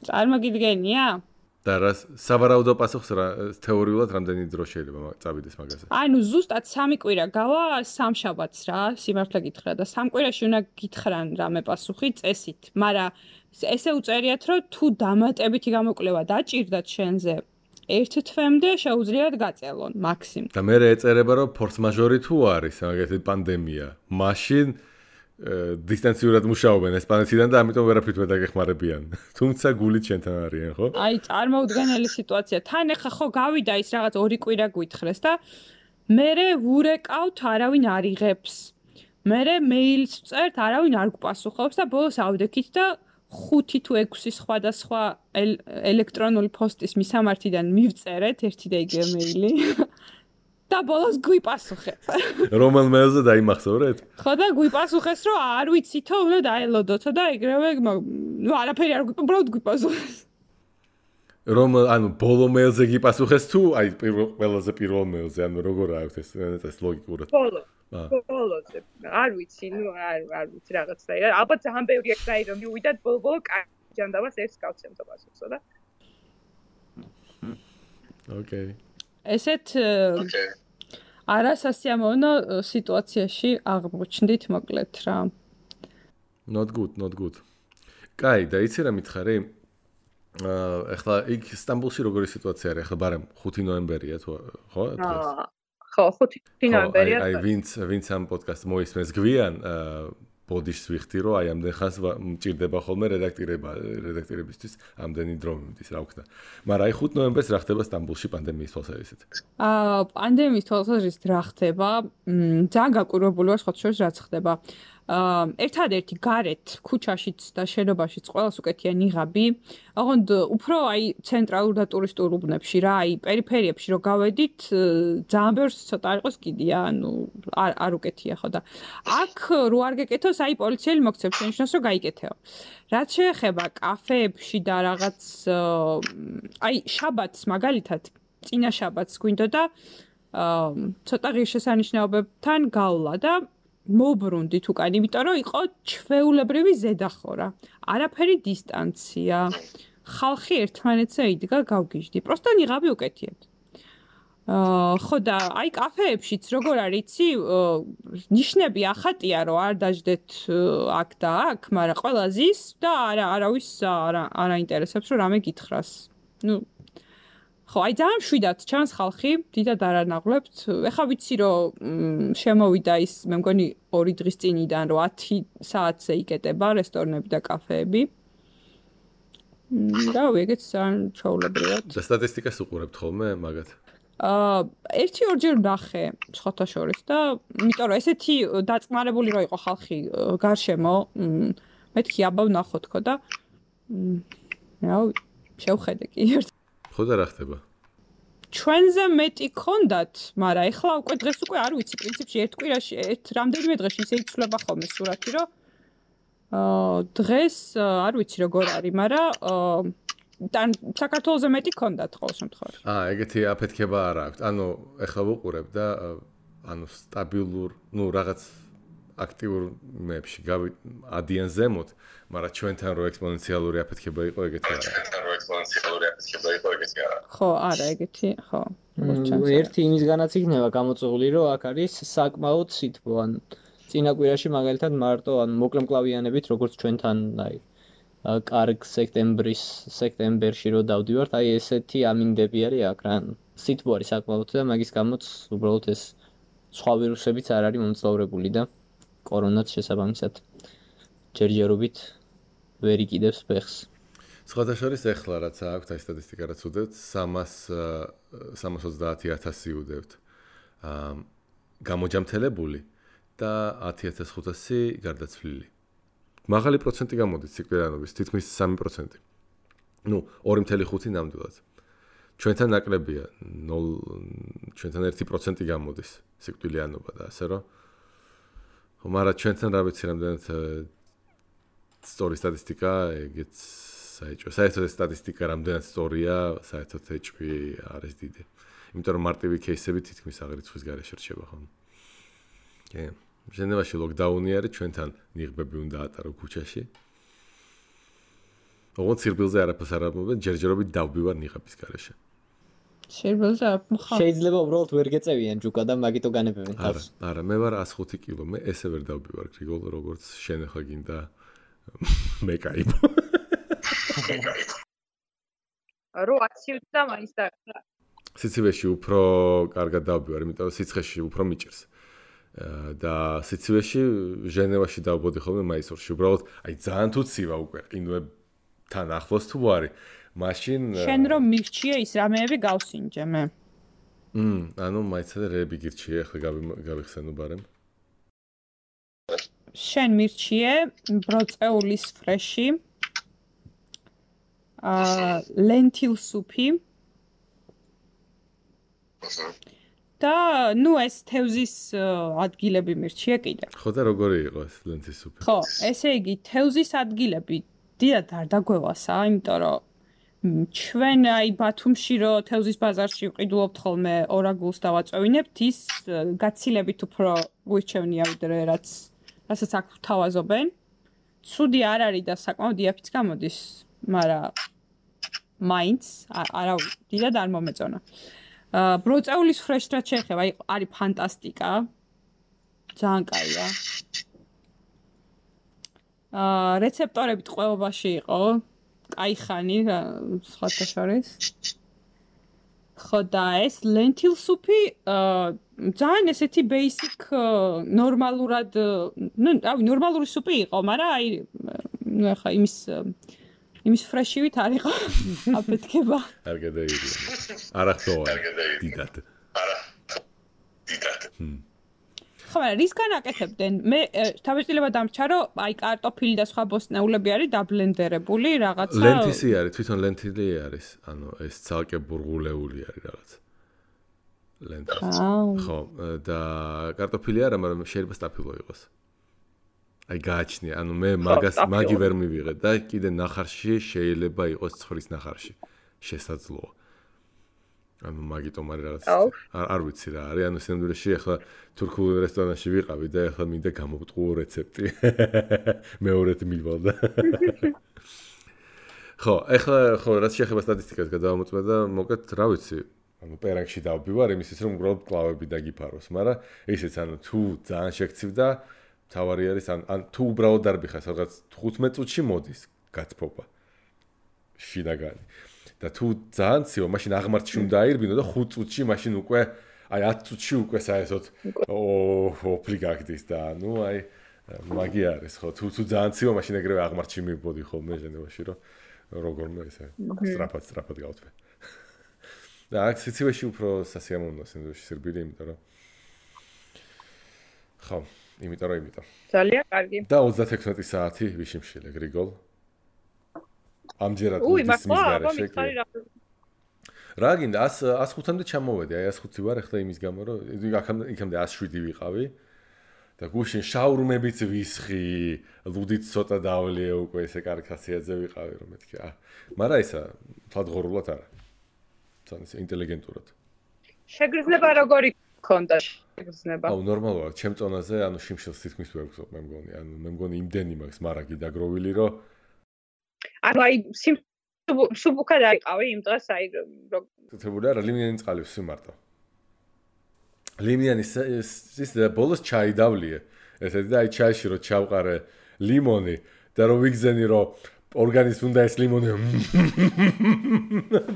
წარმოგიდგენია? და რა სავარაუდო პასუხს რა თეორიულად რამდენი დრო შეიძლება წავიდეს მაგაზე? ანუ ზუსტად 3 კვირა გავა სამშაბათს რა, სიმართლე გითხრა და 3 კვირაში უნდა გითხრან რამე პასუხი წესით, მაგრამ ესე უწერიათ, რომ თუ დამატებითი გამოკვლევა დაჭირდათ შენზე 1 თვემდე შეუძლიათ გაწელონ მაქსიმუმ. და მე ეწერება რომ ფორს მაჟორი თუ არის, მაგალითად პანდემია, მაშინ დისტანციურად მუშაობენ ესპანეთიდან და ამიტომ ვერაფრით ვერ დაგეხმარებიან. თუმცა გულით შენთან არიან, ხო? აი, წარმოუდგენელი სიტუაცია. თან ახლა ხო გავიდა ის რაღაც 2 კვირა გვითხრეს და მერე ვურეკავთ, არავინ არ იღებს. მერე მეილს ვწერთ, არავინ არ გვპასუხობს და ბოლოს ავდექით და 5 თუ 6 სხვადასხვა ელექტრონული პოსტის მისამართიდან მივწერეთ ერთი და იგივე მეილი. და ბოლოს გვიპასუხეთ. რომელ მეილზე დაიმახსოვრეთ? ხო და გვიპასუხეს, რომ არ ვიცითო, უნდა დაელოდოთო და ეგრევე, ნუ არაფერი არ უბრალოდ გვიპასუხეს. ანუ ბოლო მეილზე გიპასუხეს თუ აი ყველაზე პირველ მეილზე, ანუ როგორ აქვს ეს ლოგიკურად? ბოლოზე. არ ვიცი, ნუ არ ვიცი რაღაცა. ალბათ ძალიან ბევრი ეგრე რომ მივიდათ ბოლო ჯანდაბას ერთს გავცემ და პასუხსო და. ოკეი. ესეთ არასასიამოვნო სიტუაციაში აღმოჩნდით მოკლედ რა. Not good. კაი, და იცი რა მითხარი? ეხლა იქ სტამბულში როგორი სიტუაცია არის? ეხლა ბარემ 5 ნოემბერია თუ ხო? ხო, 5 ნოემბერია. აი ვინც ამ პოდკასტს მოისმენს გვიან ბოდიშს ვიხდი, რომ აი ამდენ ხანს მჭირდება ხოლმე რედაქტორებისთვის ამდენი დრო მიმდის, რა ვქნა. მაგრამ აი 5 ნოემბერს რა ხდება სტამბულში პანდემიის თვალსაზრისით? პანდემიის თვალსაზრისით რა ხდება? ძალიან გაკვირვებული ვარ სხვათა შორის რაც ხდება. ერთადერთი გარეთ ქუჩაშიც და შენობაშიც ყველას უკეთია ნიღაბი. ოღონდ უფრო აი ცენტრალურ და ტურისტულ უბნებში რა, აი პერიფერიებში რო გავედით, ძალიან ბევრს ცოტა იყოს კიდია, ანუ არ უკეთია ხო და აქ რო არ გეკეთოს, აი პოლიციელი მოგცემს შენიშნოს რომ გაიკეთეო. რაც შეეხება კაფეებში და რაღაც აი შაბათს მაგალითად, წინა შაბათს გვინდოდა ცოტა ღირსშესანიშნაობებთან გავლა და მოbrუნდით უკან, იმიტომ რომ იყო ჩვეულებრივი ზედახორა. არაფერი დისტანცია. ხალხი ერთმანეთზე იდგა გავგიჟდი. პროსტო ნიღაბი უკეთიათ. ხო და აი კაფეებშიც როგორ არის იცი, ნიშნები ახატია რომ არ დაждეთ აქ და აქ, მაგრამ ყველა ზის და არავის არ აინტერესებს რომ რამე გითხრას. ნუ ხო, აი ძალიან მშვიდად ჩანს ხალხი, დიდად არ ანაღლებთ. ეხლა ვიცი რომ შემოვიდა ის, მე მგონი 2 დღის წინიდან რომ 10 საათზე იკეტება რესტორნები და კაფეები. და ეგეც ძალიან ჩაულებრივად. და სტატისტიკას უყურებთ ხოლმე მაგათ? 1-2 ნახე სხვათა შორის და იმიტომ რომ ესეთი დაწყმარებული რო იყო ხალხი გარშემო, მეთქი აბა ვნახოთ ხო და რა შევხედე კი ერთ. ხო და რა ხდება? ჩვენზე მეტი ქონდათ, მაგრამ ეხლა უკვე დღეს უკვე არ ვიცი, პრინციპში ერთ კვირაში რამდენიმე დღეში ისე იცვლება ხოლმე სურათი, რომ დღეს არ ვიცი როგორ არის, მაგრამ საქართველოზე მეტი ქონდათ ყოველ შემთხვევაში. ეგეთი აფეთქება არ აქვს. ანუ ეხლა ვუყურებ და ანუ სტაბილურ, რაღაც აქტიურ მეებში ადიან ზემოთ, მაგრამ ჩვენთან რო ექსპონენციალური აფეთქება იყო ეგეთი არა. ხო, არა, ეგეთი, ხო. ერთი იმისგანაც იქნება გამოწვეული, რომ აქ არის საკმაოდ სითბო, ან წინა კვირაში მაგალითად მარტო ან მოკლემკლავიანებით, როგორც ჩვენთან, კარგ სექტემბერში რო დავდივართ, ესეთი ამინდები არის აქ რა. სითბო არის საკმაოდ და მაგის გამოც უბრალოდ ეს სხვა ვირუსებიც არ არის მომძლავრებული და კორონაც შესაბამისად ჯერჯერობით ვერ იკიდებს ფეხს. სხვათა შორის ეხლა რაც აქვს აი სტატისტიკა რაც უდევთ 330,000 უდევთ გამოჯამთელებული და 10,500 გარდაცვლილი. მაღალი პროცენტი გამოდის სიკვდილიანობის, თითქმის 3%. 2.5 ნამდვილად. ჩვენთან ნაკლებია 0 ჩვენთან 1% გამოდის სიკვდილიანობა და ასე რომ მაგრამ ჩვენთან რა ვიცი რამდენად სწორი სტატისტიკა ეგეც საერთოდ სტატისტიკა რამდენად სწორია საერთოდ ეჭვი არის დიდი. იმიტომ რომ მარტივი кейსები თითქმის აღრიცხვის გარეშე რჩება ხოლმე. კი. ჟენევაში ლოკდაუნი არის, ჩვენთან ნიღბები უნდა ატარო ქუჩაში. ოღონდ სირბილზე არაფერს არ ამბობენ, ჯერჯერობით დავბივარ ნიღბის გარეშე. სირბილზე არ მხარ. შეიძლება უბრალოდ ვერ გეწევიან ჯუკა და მაგიტო განებებენ თავს. არა, მე ვარ 105 კილო, მე ესე ვერ დავბივარ გრიგოლ, როგორც შენ ახლა გინდა მე кайფო. რო აციუც და მაინც და სიცივეში უფრო კარგად დავბივარ, იმიტომ რომ სიცხეში უფრო მიჭირს. და სიცივეში ჟენევაში დავბოდი ხოლმე მაისურში. უბრალოდ აი ძალიან თუ ცივა უკვე ყინვებთან ახლოს თუ არის. მაშინ შენ რომ მირჩიე ის რამეები გავსინჯე მე. ანუ მაიცადე რეები გირჩიე, ახლა გავიხსენო ბარემ. შენ მირჩიე ბროწეულის ფრეში. lentil soup-ი. და ეს თევზის ადგილები მირჩიე კიდე. ხო და როგორი იყო ეს lentil soup-ი? ხო, ესე იგი თევზის ადგილები დიდად არ დაგვევასა, იმიტომ რომ ჩვენ აი ბათუმში რო თევზის ბაზარში ვყიდულობთ ხოლმე ორაგულს დავაწევინებთ, ის გაცილებით უფრო გვირჩევნია ვიდრე რასაც აქ ვთავაზობენ. ცუდი არ არის და საკმაოდ იაფიც გამოდის, მაგრამ მაინც არა დიდად არ მომეწონა. ბროწეულის ფრეშს რაც შეეხება, არის ფანტასტიკა. ძალიან კაია. რეცეპტორები ტყვეობაში იყო. კაი ხანი, სხვათა შორის. ხო და ეს lentil soup-ი ძალიან ესეთი basic ნორმალურად, ნორმალური სუპი იყო, მაგრამ ახლა იმის ფრეშივით არ იყო აფეთქება. არ გადაიდი. არა ხოა. დიდად. ხო, მაგრამ რის განაკეთებდნენ? მე თავისუფლება დამრჩა, რომ აი კარტოფილი და სხვა ბოსტნეულები არის დაბლენდერებული რაღაცა. ლენტისი არის, თვითონ ლენტილი არის. ანუ ეს ცალკე ბურღულეული არის რაღაც. ლენტისი. ხო, და კარტოფილი არა, მაგრამ შეიძლება სტაფილო იყოს. აი გააჩნია, ანუ მე მაგი ვერ მივიღე და კიდე ნახარში შეიძლება იყოს ცხვრის ნახარში. შესაძლოა. ანუ მაგიტომ არის რაღაც არ ვიცი რა არის, ანუ სინამდვილეში ახლა თურქულ რესტორანში ვიყავი და ახლა მინდა გამოვტყუო რეცეპტი. მეორედ მივალ და. ხო, ახლა ხო რაც შეეხება სტატისტიკას გადავამოწმე და მოკეთ რა ვიცი, ანუ პერანგში დავბივარ იმისთვის რომ უბრალოდ კლავები დაგიფაროს, მაგრამ ისიც ანუ თუ ძალიან შეგცივდა თავარი არის ან თუ უბრალოდ დარბიხარ სადღაც 15 წუთში მოდის გაცფობა შინაგანი და თუ ძალიან ცივა მაშინ აღმართში უნდა აირბინო და 5 წუთში მაშინ უკვე აი 10 წუთში უკვე საერთოდ ოფლი გაგდის და ნუ აი მაგი არის ხო თუ ძალიან ცივა მაშინ ეგრევე აღმართში მივბოდი ხოლმე ჟენევაში რომ როგორმე ესე სტრაფად გავთვე და აქ სიცივეში უფრო სასიამოვნოა სინდრომში სირბილი იმიტომ რომ ხო იმიტომ. ძალიან კარგი. და 36 საათი ვიშიმშილე გრიგოლ. ამჯერად ის მისგარეშე. რა გინდა 105-მდე ჩამოვედი, აი 105 ვარ ახლა იმის გამო რომ იქამდე 107 ვიყავი. და გუშინ შაურმებიც ვისხი, ლუდით ცოტა დავლიე უკვე ესე კარგი ხასიათზე ვიყავი რომ მეთქი. მაგრამ ისა თვალღორულად არა. ძალიან ინტელიგენტურად. შეგრძნება როგორი ხონდა შეგრძნება. აუ ნორმალურია, ჩემ წონაზე, ანუ შიმშილს თითქმის ვერ გწობ, მე მგონი. ანუ მე მგონი იმდენი მაქვს მარაგი დაგროვილი, რომ ანუ აი სუბუქად აიყავი იმ დღეს აი თეთრებული არა, ლიმიანი წყალი ვსვიმარტო. ლიმიანი ის ბოლოს ჩაი დავლიე. ესეთი და აი ჩაიში რო ჩავყარე ლიმონი და რო ვიგზენი რომ ორგანიზმს უნდა ეს ლიმონი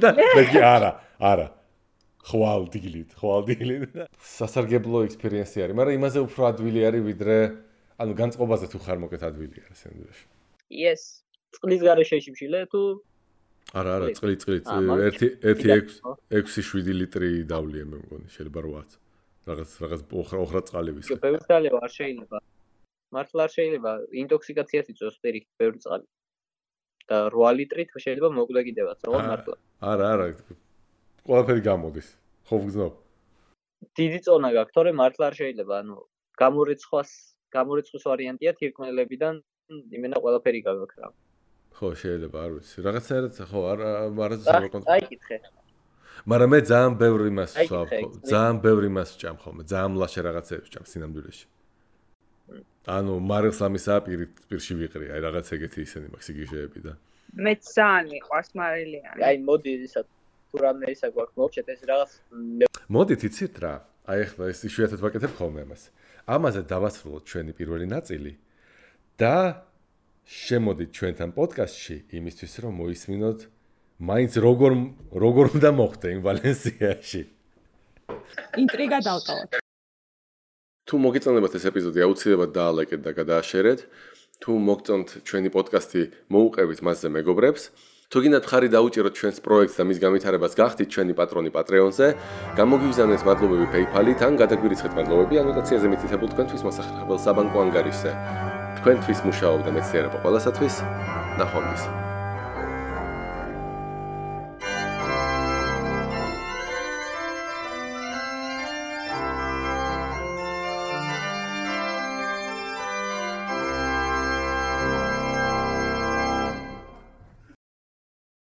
და მე არა ხვალდილით სასარგებლო ექსპერიენსი არის მაგრამ იმაზე უფრო ადვილი არის ვიდრე ანუ განწყობაზე თუ ხარ მოკეთ ადვილი არის სენდვიჩი yes წყლის გარეშეში მშილე თუ არა წყლით 1.6-7 ლიტრი დავლიე მე მგონი შეიძლება 8 რაღაც ოხრა წყალი ვისე ბევრი წყალი არ შეიძლება მართლა არ შეიძლება ინტოქსიკაციას იწვევს პირიქით ბევრი წყალი და 8 ლიტრით შეიძლება მოკვდა კიდევაც რა მართლა არა ყველაფერი გამოდის ხო ვგზნობ დიდი წონა გაქვს თორე მართლა არ შეიძლება ანუ გამორიცხვის ვარიანტია თირკმელებიდან იმენა ყველაფერი გაქვს რა ხო შეიძლება არ ვიცი რაღაცაერად ხო არა აიკითხე მაგრამ მე ძალიან ბევრი იმას ვსვამ ძალიან ბევრი იმას ვჭამ ხოლმე ძალიან ლაშე რაღაცებს ვჭამ სინამდვილეში ანუ მარილს ამისა პირში ვიყრი აი რაღაც ეგეთი ისენი მაქვს სიგიჟეები და მე ძალიან მიყვარს მარილიანი აი მოდი ისა თუ რამე ისა გვაქვს მოვჩეთ ეს რაღაც მოდით იცით რა აი ახლა ეს იშვიათად ვაკეთებ ხოლმე ამაზე დავასრულოთ ჩვენი პირველი ნაწილი და შემოდით ჩვენთან პოდკასტში იმისთვის რომ მოისმინოთ მაინც როგორ უნდა მოხდე იმ ვალენსიაში ინტრიგა დავტოვოთ თუ მოგეწონებათ ეს ეპიზოდი აუცილებლად დაალაიკეთ და გადააშერეთ თუ მოგწონთ ჩვენი პოდკასტი მოუყევით მასზე მეგობრებს თუ გინდათ ხარი დაუჭიროთ ჩვენს პროექტს და მის განვითარებას გახდით ჩვენი პატრონი პატრეონზე გამოგიგზავნეთ მადლობები PayPal-ით ან გადაგვირიცხეთ მადლობები ანოტაციაზე მითითებულ თქვენთვის მოსახერხებელ საბანკო ანგარიშზე თქვენთვის მუშაობდა მეცნიერება ყველასათვის ნახვამდის